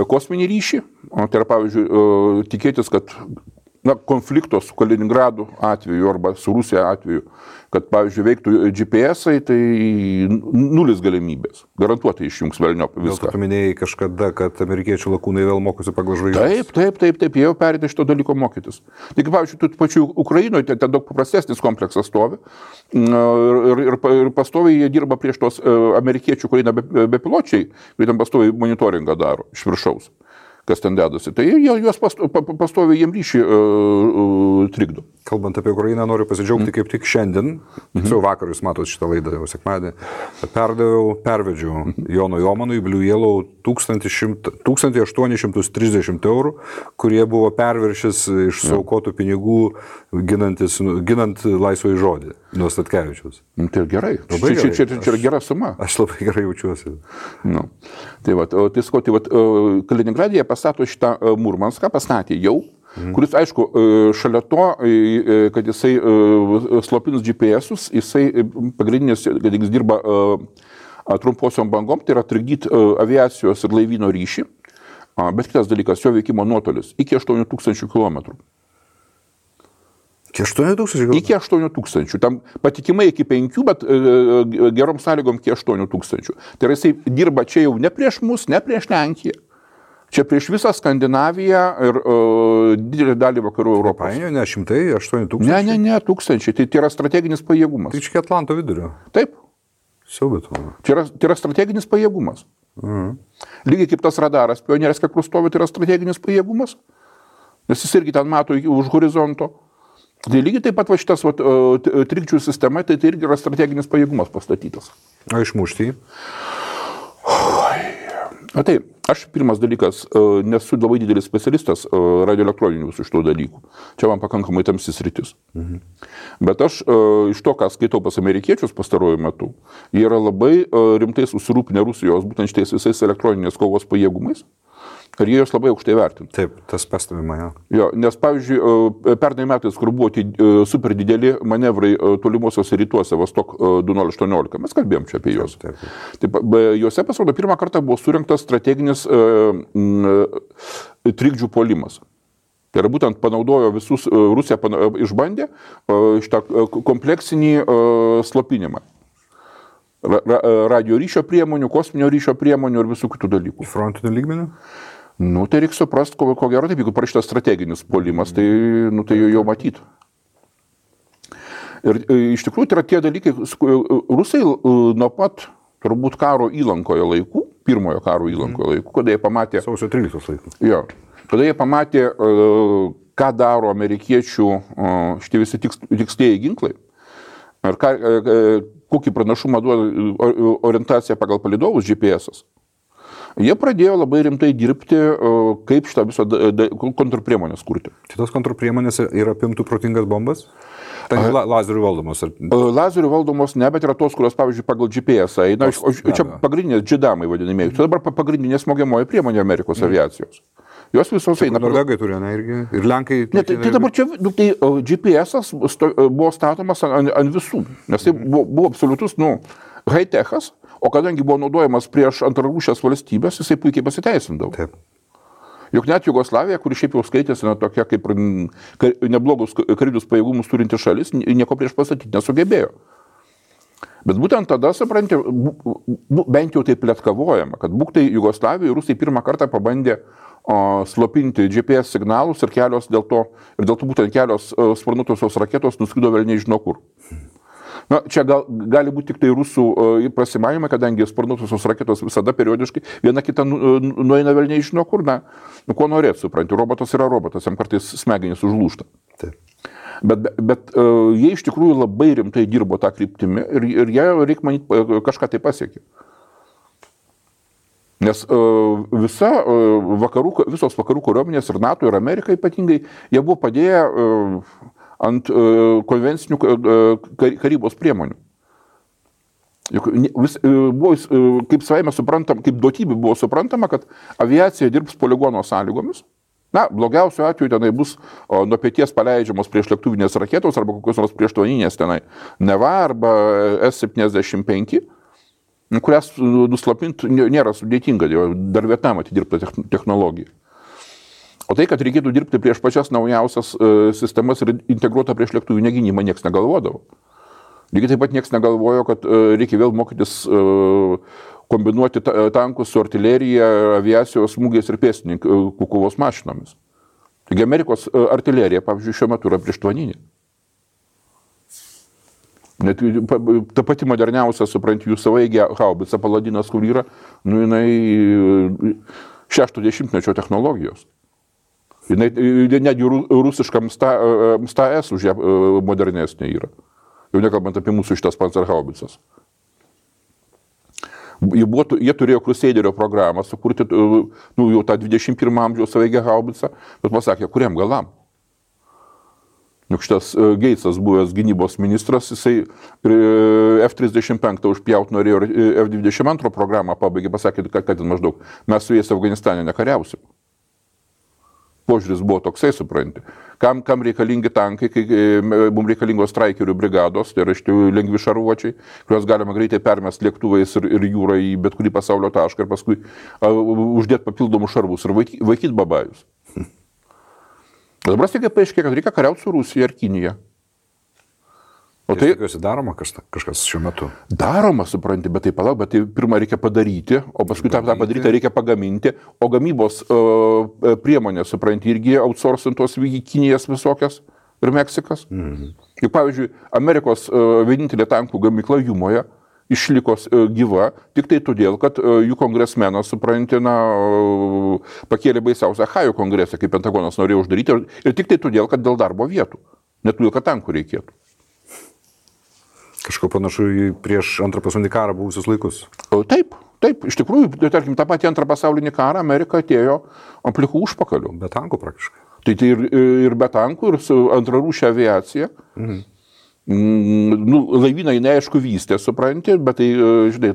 kosminį ryšį. Tai yra, pavyzdžiui, tikėtis, kad konflikto su Kaliningradu atveju arba su Rusija atveju, kad, pavyzdžiui, veiktų GPS-ai, tai nulis galimybės. Garantuotai išjungs velniop viską. Dėl to tu minėjai kažkada, kad amerikiečių lakūnai vėl mokosi pagal žvaigždės. Taip, jie jau perėdė šito dalyko mokytis. Tik, pavyzdžiui, tu pačiu Ukrainoje ten daug paprastesnis kompleksas stovi ir pastoviai jie dirba prieš tos amerikiečių Ukrainą bepiločiai, kurie ten pastoviai monitoringą daro iš viršaus, kas ten dedasi. Tai juos pastoviai jiem ryšį trikdo. Kalbant apie Ukrainą, noriu pasidžiaugti kaip tik šiandien, tiksliau vakar jūs matot šitą laidą jau sekmadienį, pervedžiau Jono Jomanui Blue Yellow 1830 eurų, kurie buvo perviršis iš suaukotų pinigų ginant laisvąjį žodį nuo Statkevičiaus. Tai gerai. Čia yra gera suma. Aš labai gerai jaučiuosi. Nu. Tai Kaliningradėje pastato šitą Murmanską, pastatė jau, kuris, aišku, šalia to, kad jisai slopinus GPS-us, jisai pagrindinis, kad jis dirba trumposiom bangom, tai yra trikdyti aviacijos ir laivyno ryšį, bet kitas dalykas, jo veikimo nuotolis iki 8000 km. Iki 8000? Iki 8000. Tam patikimai iki 5, bet gerom sąlygom iki 8000. Tai yra, jisai dirba čia jau ne prieš mus, ne prieš Lenkiją. Čia prieš visą Skandinaviją ir didelį dalį vakarų Europos. Ne, 100, 8000? Ne, tūkstančiai. Tai yra strateginis pajėgumas. Tai čia Atlanto vidurio. Taip. Siaubėt. Tai yra strateginis pajėgumas. Lygiai kaip tas radaras Pionierės, kai kur stovi, tai yra strateginis pajėgumas. Nes jis irgi ten mato už horizonto. Tai lygiai taip pat šitas trikdžių sistema, tai irgi yra strateginis pajėgumas pastatytas. O išmušti? Taip, aš pirmas dalykas, nesu labai didelis specialistas radioelektroninių visų šitų dalykų. Čia man pakankamai tamsis sritis. Bet aš iš to, ką skaitau pas amerikiečius pastaruoju metu, jie yra labai rimtai susirūpinę Rusijos būtent šitais visais elektroninės kovos pajėgumais. Ir jie jos labai aukštai vertina. Taip, tas pastebima, jo. Jo, nes, pavyzdžiui, pernai metais, kur buvo super dideli manevrai tolimuosiuose rytuose, Vostok 2018, mes kalbėjom čia apie juos. Taip, juose pasirodo pirmą kartą buvo surinktas strateginis trikdžių puolimas. Tai yra būtent panaudojo visus, Rusija išbandė šitą kompleksinį slopinimą. Radio ryšio priemonių, kosminio ryšio priemonių ir visų kitų dalykų. Frontinių lygmenių? Nu, tai reikia suprasti, ko gero taip, jeigu parašytas strateginis puolimas, tai jau matytų. Ir iš tikrųjų tai yra tie dalykai, Rusai nuo pat turbūt karo įlankoje laikų, pirmojo karo įlankoje laikų, kada jie pamatė... Sausio 13 laikų. Jo, kada jie pamatė, ką daro amerikiečių šitie visi tikslieji ginklai, ir kokį pranašumą duoda orientacija pagal palydovus GPS-as. Jie pradėjo labai rimtai dirbti, kaip šitą visą kontrpriemonės kurti. Šitos kontrpriemonės yra apimtų protingas bombas? Tai lazerių valdomos? Lazerių valdomos ne, bet yra tos, kurios, pavyzdžiui, pagal GPS eina. Čia pagrindinės džidamai vadinamieji. Čia dabar pagrindinė smogiamoji priemonė Amerikos aviacijos. Jos visos eina. Norvegai turi, ne, irgi? Ir Lenkai... Ne, tai dabar čia GPS-as buvo statomas ant visų, nes tai buvo absoliutus, high-techas, o kadangi buvo naudojamas prieš antrarūšės valstybės, jisai puikiai pasiteisindavo. Taip. Juk net Jugoslavija, kuri šiaip jau skaitėsi tokia kaip neblogus karinius pajėgumus turinti šalis, nieko prieš pastatyti nesugebėjo. Bet būtent tada, supranti, bent jau taip pletkavojama, kad būktai Jugoslavijoje Rusai pirmą kartą pabandė slopinti GPS signalus ir dėl to būtent kelios sparnuotosios raketos nuskrido velniai žino kur. Na, čia gali būti tik tai rusų prasimavimai, kadangi sparnuotosios raketos visada periodiškai viena kita nueina velniai žino kur, ko norėt, supranti, robotas yra robotas, jam kartais smegenys užlūžta. Taip. Bet jie iš tikrųjų labai rimtai dirbo tą kryptimį ir jie, reikia manyti, kažką tai pasiekė. Nes visos vakarų kariuomenės ir NATO ir Amerika ypatingai, jie buvo padėję ant konvencinių karybos priemonių. Buvo, kaip savaime suprantam, kaip duotybė buvo suprantama, kad aviacija dirbs poligono sąlygomis. Na, blogiausiu atveju tenai bus nuo pieties paleidžiamos prieš lėktuvinės raketos arba kokios nors prieštvaninės tenai Neva arba S-75, kurias nuslopinti nėra sudėtinga, dar Vietnamą atidirbta technologija. O tai, kad reikėtų dirbti prieš pačias naujausias sistemas ir integruotą prieš lėktuvų gynybą, niekas negalvodavo. Lygiai taip pat niekas negalvojo, kad reikia vėl mokytis kombinuoti tankus su artilerija, aviacijos smūgiais ir pėstininkų kovos mašinomis. Taigi Amerikos artilerija, pavyzdžiui, šiuo metu yra prieštvanyninė. Net ta pati moderniausia, supranti, jų savaigė haubica Paladinas, kur yra, jinai 60-mečio technologijos. Jinai netgi rusiškam MSTS už ją modernesnė yra. Jau nekalbant apie mūsų šitas Panzerhaubicas. Jie turėjo Crusaderio programą sukurti, jau tą 21 amžiaus savaigę haubicą, bet pasakė, kuriam galam. Juk šitas Geitsas, buvęs gynybos ministras, jisai F-35 užpjaut norėjo ir F-22 programą pabaigė, pasakė, kad maždaug mes su jais Afganistane nekariausim. Požiūris buvo toksai, supranti. Kam reikalingi tankai, kai mums reikalingos straikerių brigados, tai yra lengvi šarvuočiai, kuriuos galima greitai permesti lėktuvais ir jūrą į bet kurį pasaulio tašką ir paskui uždėti papildomus šarvus ir vaikyti babajus. Dabar staiga paaiškėjo, kad reikia kariauti su Rusija ir Kinija. O tai tikiuosi daroma kažkas šiuo metu. Daroma, supranti, bet tai palauk, bet tai pirmą reikia padaryti, o paskui tą padaryti reikia pagaminti, o gamybos priemonės, supranti, irgi outsourcintos Kinijas visokias ir Meksikas. Juk, pavyzdžiui, Amerikos vienintelė tankų gamykla Jumoje išliko gyva tik tai todėl, kad jų kongresmenas, supranti, pakėlė baisiausią Ohio kongresą, kaip Pentagonas norėjo uždaryti, ir tik tai todėl, kad dėl darbo vietų, net todėl, kad tankų reikėtų. Kažko panašu į prieš antrą pasaulinį karą buvusius laikus. Taip, iš tikrųjų, tarkim, tą patį antrą pasaulinį karą Amerika atėjo ant plikų užpakalių. Be tankų praktiškai. Tai ir be tankų, ir su antrarūšia aviacija. Laivynai neaišku vystė, supranti, bet tai, žinai,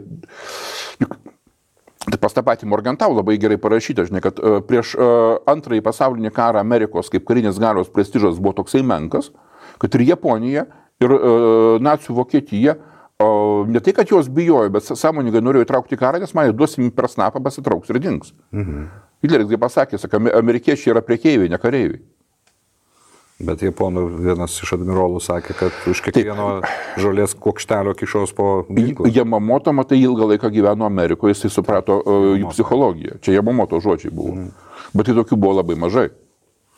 tai pas tą patį Morgenthau labai gerai parašyta, žinai, kad prieš antrąjį pasaulinį karą Amerikos kaip karinės galios prestižas buvo toksai menkas, kad ir Japonija, ir nacių Vokietija, ne tai, kad jos bijojo, bet sąmoningai norėjo įtraukti karą, nes man duosim per snapą, pasitrauks ir dings. Hitleris kaip pasakė, sako, amerikiečiai yra prekeiviai, ne kareiviai. Bet japonų vienas iš admirolų sakė, kad už kiekvieno žolės kuokštelio kišos po ginklą. Yamamoto, matai, ilgą laiką gyveno Amerikoje, jisai suprato jų psichologiją. Čia Yamamoto žodžiai buvo. Bet tai tokių buvo labai mažai.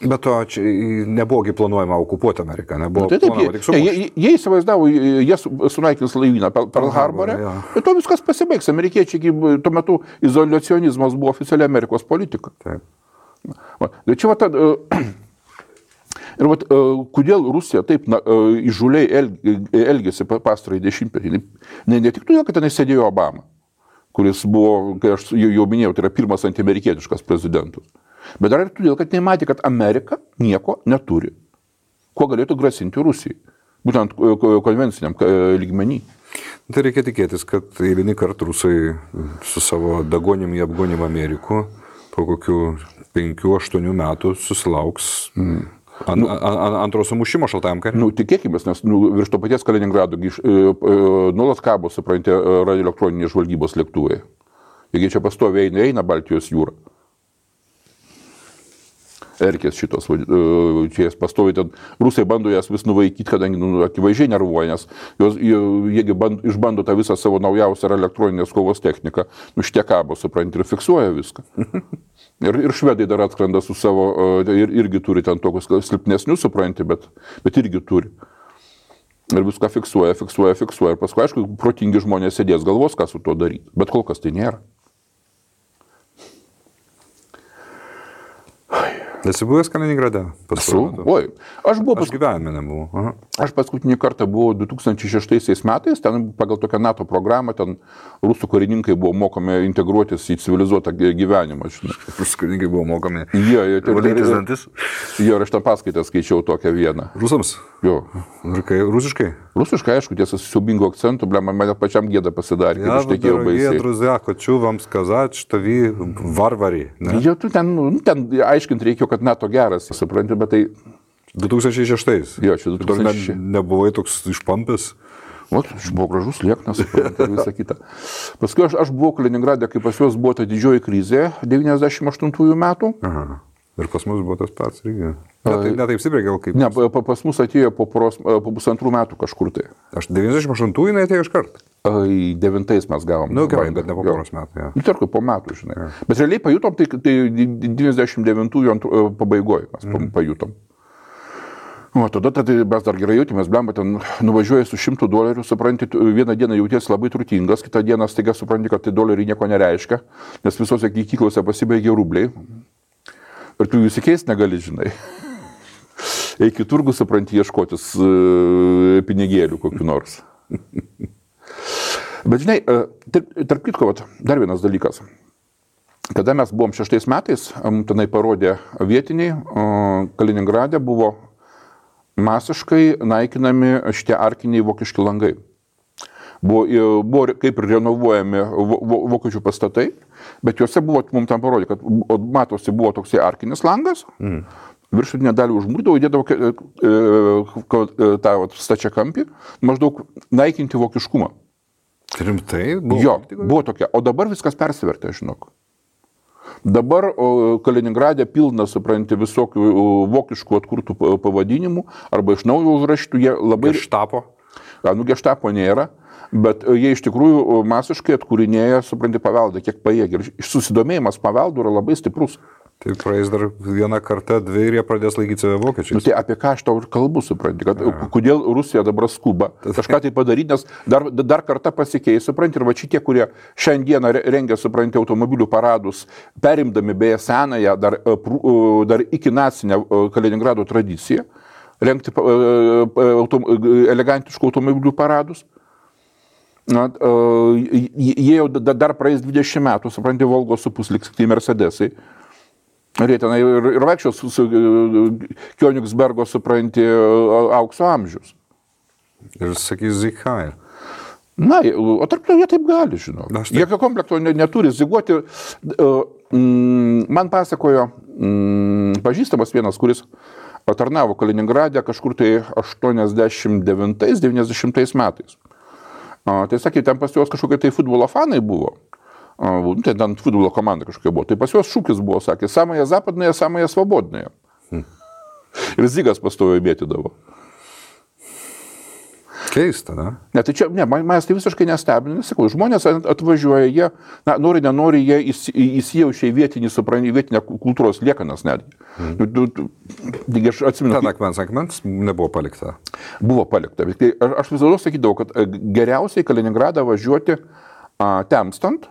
Bet to čia nebuvogi planuojama okupuoti Ameriką, nebuvo planuojama tik sumušti. Jie įsivaizdavo, jie sunaikins laivyną Pearl Harbore, ir to viskas pasibaigs. Amerikiečiai, tuo metu izoliacionizmas buvo oficiali Amerikos politika. Taip. Tai čia ir kodėl Rusija taip įžūliai elgėsi pastarąjį dešimtmetį. Ne tik todėl, kad tenai sėdėjo Obama, kuris buvo, kai aš jau minėjau, tai yra pirmas antiamerikietiškas prezidentas. Bet dar ir todėl, kad nematė, kad Amerika nieko neturi, kuo galėtų grasinti Rusijai, būtent konvenciniam lygmenį. Tai reikia tikėtis, kad eilinį kartą rusai su savo dagonimi apgonim Amerikų po kokių 5-8 metų susilauks antro sumušimo šaltajam kare. Tikėkimės, nes virš to paties Kaliningrado nuolat kabo, supranti, radioelektroninės žvalgybos lėktuvai. Jeigu čia pastoviai eina Baltijos jūra. Erkės šitos, čia jas pastoviai ten, rusai bando jas vis nuvaikyti, kadangi akivaizdžiai nervuoja, nes jie išbando tą visą savo naujausią elektroninės kovos techniką, šitie kabo, supranti, ir fiksuoja viską. Ir švedai dar atskrenda su savo, irgi turi ten tokius silpnesnius, supranti, bet irgi turi. Ir viską fiksuoja, ir paskui, aišku, protingi žmonės sėdės galvos, ką su to daryti, bet kol kas tai nėra. Esi buvęs Kaliningrade? Oi, aš gyvenime nebuvau. Aš paskutinį kartą buvau 2006 metais, ten pagal tokią NATO programą, ten rusų karininkai buvo mokomi integruotis į civilizuotą gyvenimą. Rusų karininkai buvo mokomi valytis dantis? Jo, ir aš tą paskaitą skaičiau tokią vieną. Rusams? Jo. Ir kai rusiškai? Rusiškai, aišku, tiesa, su siaubingu akcentu, mane pačiam gėda pasidarė, kad ištekėjau baisiai. Я, друзья, хочу вам сказать, что вы варвари. Jo, tu ten aiškinti reikėjo, kad NATO geras, supranti, bet tai... 2006. Jo, čia 2006. Nebuvai toks išpampęs. Aš buvau gražus, lieknas, supranti, ir visą kitą. Paskui aš buvau Kaliningrade, kai pas juos buvo ta didžioji krizė 98 metų. Ir pas mus buvo tas pats irgi. Ne taip stipriai gal kaip. Ne, pas mus atėjo po 2 metų kažkur tai. Aš 98 jinai atėjo iš karto. 9 mes gavom. Gerai, bet ne po poros metų. Ja. Tarkai po metų, žinai. Ja. Bet realiai pajutom, tai 99 pabaigoje mes pajutom. O tada mes dar gerai jautėmės, blemba, ten nuvažiuoji su $100, supranti, vieną dieną jautiesi labai turtingas, kitą dieną staiga supranti, kad tai doleriai nieko nereiškia, nes visose kyklose pasibaigė rubliai. Ir tu jų įsikeisti negali, žinai. Eik į turgų, supranti, ieškotis pinigėlių kokiu nors. Bet žinai, tarp kitko, dar vienas dalykas. Kada mes buvom 6 metais, tenai parodė vietiniai, Kaliningrade buvo masiškai naikinami šitie arkiniai vokiški langai. Buvo kaip ir renovuojami vokiečių pastatai, bet juose buvo, mums tam parodė, kad matosi buvo toksai arkinis langas, viršutinę dalį užmūrdavo, įdėdavo tą stačiakampį, maždaug naikinti vokiškumą. Rimtai? Jo, buvo tokia. O dabar viskas persivertė, žinok. Dabar Kaliningrade pilna, supranti, visokių vokiškų atkurtų pavadinimų arba iš naujo užrašytų, jie labai... Geštapo? Geštapo nėra, bet jie iš tikrųjų masiškai atkūrinėja, supranti, paveldą, kiek pajėgia. Ir susidomėjimas paveldu yra labai stiprus. Tai praeis dar vieną kartą, 2 ir jie pradės laikyti save vokiečiais. Tai apie ką aš tau ir kalbu, supranti, kad kodėl Rusija dabar skuba kažką tai padaryti, nes dar kartą pasikeis, supranti, ir va šitie, kurie šiandieną rengia, supranti, automobilių paradus, perimdami beje senąją, dar iki nacinę Kaliningrado tradiciją, rengti elegantiškų automobilių paradus. Jie jau dar praeis 20 metų, supranti, Volgos supusliks, tai Mercedesai. Ir jie tenai ir vaikščios su Kionigsbergo, supranti, aukso amžius. Ir sakys Zikhair. Na, o tarp to jie taip gali, žinau. Jokio komplekto neturi ziguoti. Man pasakojo pažįstamas vienas, kuris tarnavo Kaliningrade kažkur tai 89-90 metais. Tai sakė, ten pas juos kažkokie tai futbolo fanai buvo. Ten futbolo komanda kažkokia buvo. Tai pas juos šūkis buvo, sakė, samąją zapadnąją, samąją svobodnąją. Ir Zigas pastojo mėtydavo. Keista, ne? Ne, tai čia, manęs tai visiškai nestebina, sakau, žmonės atvažiuoja, jie, nori, nenori, jie įsijaučia į vietinę kultūros liekanas netgi. Aš atsimenu. Ten akmens nebuvo palikta. Buvo palikta. Aš visada sakydavau, kad geriausiai Kaliningradą važiuoti temstant,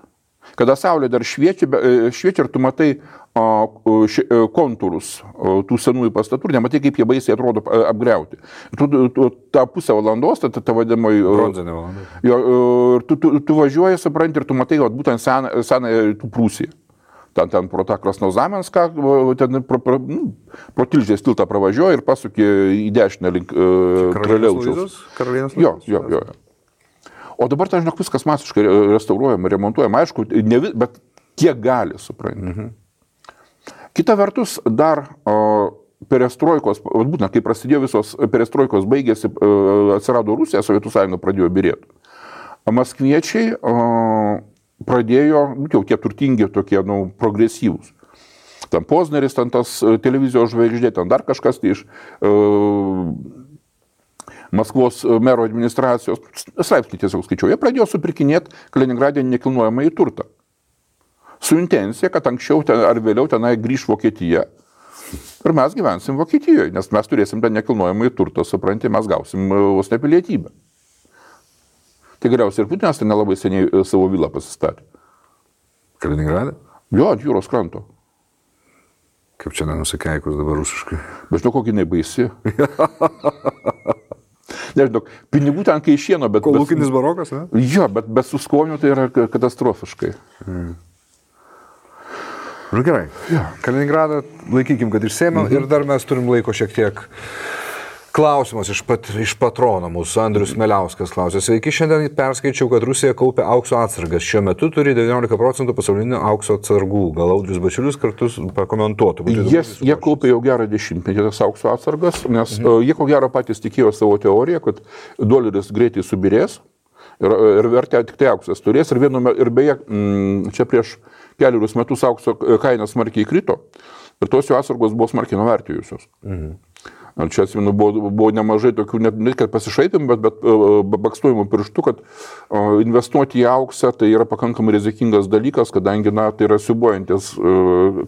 kada saulė dar šviečia ir tu matai kontūrus tų senųjų pastatų, nematai, kaip jie baisiai atrodo apgriauti. Tu tą pusę valandos, ta vadinamai... Bronzinė valanda. Ir tu važiuoji, supranti, ir tu matai, būtent senąją tų Prūsiją. Ten pro tą Krasnozamenską, ten pro Tilžės tiltą pravažiuoji ir pasuki į dešinę link Karaliaučiaus. Jo. O dabar, tai žinok, viskas masiškai restauruojama, remontuojama, aišku, bet kiek gali, supranti. Kita vertus, dar perestroikos, būtent kai prasidėjo visos perestroikos baigėsi, atsirado Rusija, Sovietų sąjunga pradėjo byrėti. Maskviečiai pradėjo, jau tie turtingi, tokie, progresyvūs. Ten Pozneris, ten tas televizijos žvaigždė, ten dar kažkas tai iš Maskvos mero administracijos, straipsnį tiesiog skaičiau, jie pradėjo supirkinėti Kaliningrade nekilnojamą į turtą. Su intencija, kad anksčiau ar vėliau tenai grįž Vokietija ir mes gyvensim Vokietijoje, nes mes turėsim tą nekilnojamą į turtą, supranti, mes gausim vos ne pilietybę. Tai galiausiai ir Putinas ten nelabai seniai savo vilą pasistatė. Kaliningrade? Jo, ant jūros kranto. Kaip čia nenusikeikus dabar rusiškai? Bet žinau, kokį jinai baisi. Nežinau, pinigų ten kai šieno, bet... Kolūkinis barokas, ne? Jo, bet su skoniu tai yra katastrofiškai. Gerai. Ja. Kaliningradą laikykim, kad išsėmėm ir dar mes turim laiko šiek tiek. Klausimas iš patrono mūsų, Andrius Meliauskas klausė. Sveiki, šiandien perskaičiau, kad Rusija kaupia aukso atsargas. Šiuo metu turi 19% pasaulinių aukso atsargų. Gal Audrius Bačiulis kartu pakomentuotų. Jie kaupia jau gerą 10-metį tas aukso atsargas, nes jie ko gero patys tikėjo savo teoriją, kad doleris greitai subirės ir vertė tik tai auksas turės. Ir beje, čia prieš kelius metus aukso kaina smarkiai krito. ir tos jų atsargos buvo smarkiai nuvertėjusios. Čia atsimenu, buvo nemažai tokių, net kad pasišaipim, bet bakstojimų pirštų, kad investuoti į auksą tai yra pakankamai rizikingas dalykas, kadangi, tai yra siubuojantis,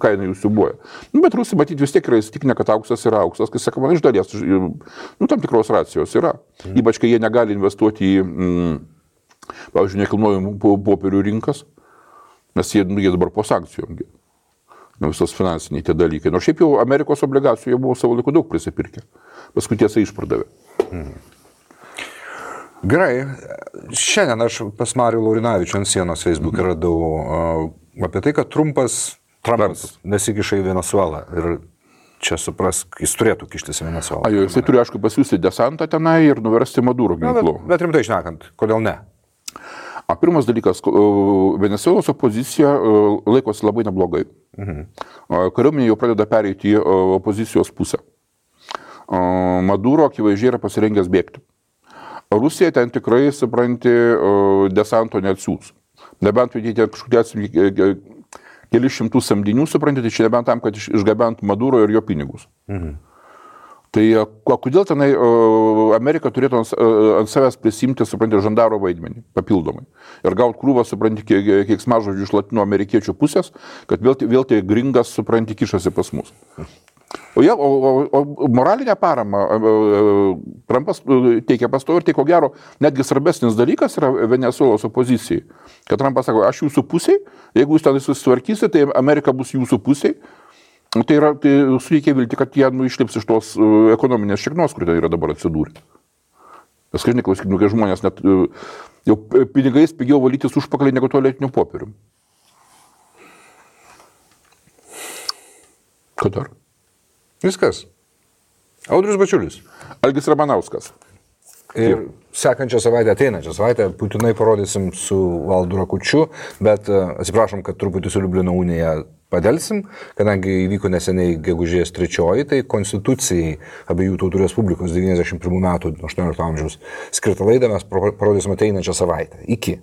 kaina jų siubuoja. Bet rusai, matyti, vis tiek yra įsitikinę, kad auksas yra auksas, kai sakoma, iš dalies, tam tikros racijos yra. Ypač, kai jie negali investuoti į, pavyzdžiui, nekilnojamų popierių rinkas, nes jie dabar po sankcijom. Visos finansiniai tie dalykai. Nors šiaip jau Amerikos obligacijų jie buvo savo laiku daug prisipirkę. Paskui tiesa išpardavė. Gerai. Šiandien aš pas Marių Laurinavičių ant sienos Facebook radau apie tai, kad Trumpas nesikiša į Venezuelą. Ir čia suprask, jis turėtų kištis į Venezuelą. Jisai turi, aišku, pasiūsti desantą tenai ir nuversti Maduro ginklu. Bet rimtai šnekant, kodėl ne? Pirmas dalykas, Venesuelos opozicija laikosi labai neblogai. Kariuomenė jau pradeda pereiti į opozicijos pusę. Maduro akivaizdžiai yra pasirengęs bėgti. Rusija ten tikrai, supranti, desanto neatsiūs. Nebent jie ten kažkokie keli šimtų samdinių, supranti, tai čia nebent tam, kad išgabentų Maduro ir jo pinigus. Tai kodėl tenai Amerika turėtų ant savęs prisimti, supranti, žandaro vaidmenį papildomai. Ir gauti krūvą, supranti, keiksmažodžių iš latino amerikiečių pusės, kad vėl tai gringas, supranti, kišasi pas mus. O moralinę paramą Trumpas teikia pastovi ir tai ko gero netgi svarbesnis dalykas yra Venesuelos opozicijai. Kad Trumpas sako, aš jūsų pusiai, jeigu jūs ten susitvarkysite, tai Amerika bus jūsų pusiai. Tai suteikia vilti, kad jie išlips iš tos ekonominės šiknos, kur tai yra dabar atsidūrę. Nes kažkaip klausykime, kai žmonės net jau pinigais pigiau valytis užpakalį negu tualetiniu popieriu. Ką dar? Viskas. Audrius Bačiulis. Algis Ramanauskas. Ir sekančią savaitę, ateinančią savaitę, būtinai parodysim su Valdu Rakučiu, bet atsiprašom, kad truputį su Liublino unija padelsim, kadangi įvyko neseniai gegužės 3, tai Konstitucijai abiejų tautų Respublikos 91 metų 18 amžiaus skirtą laidą mes parodysim ateinančią savaitę. Iki.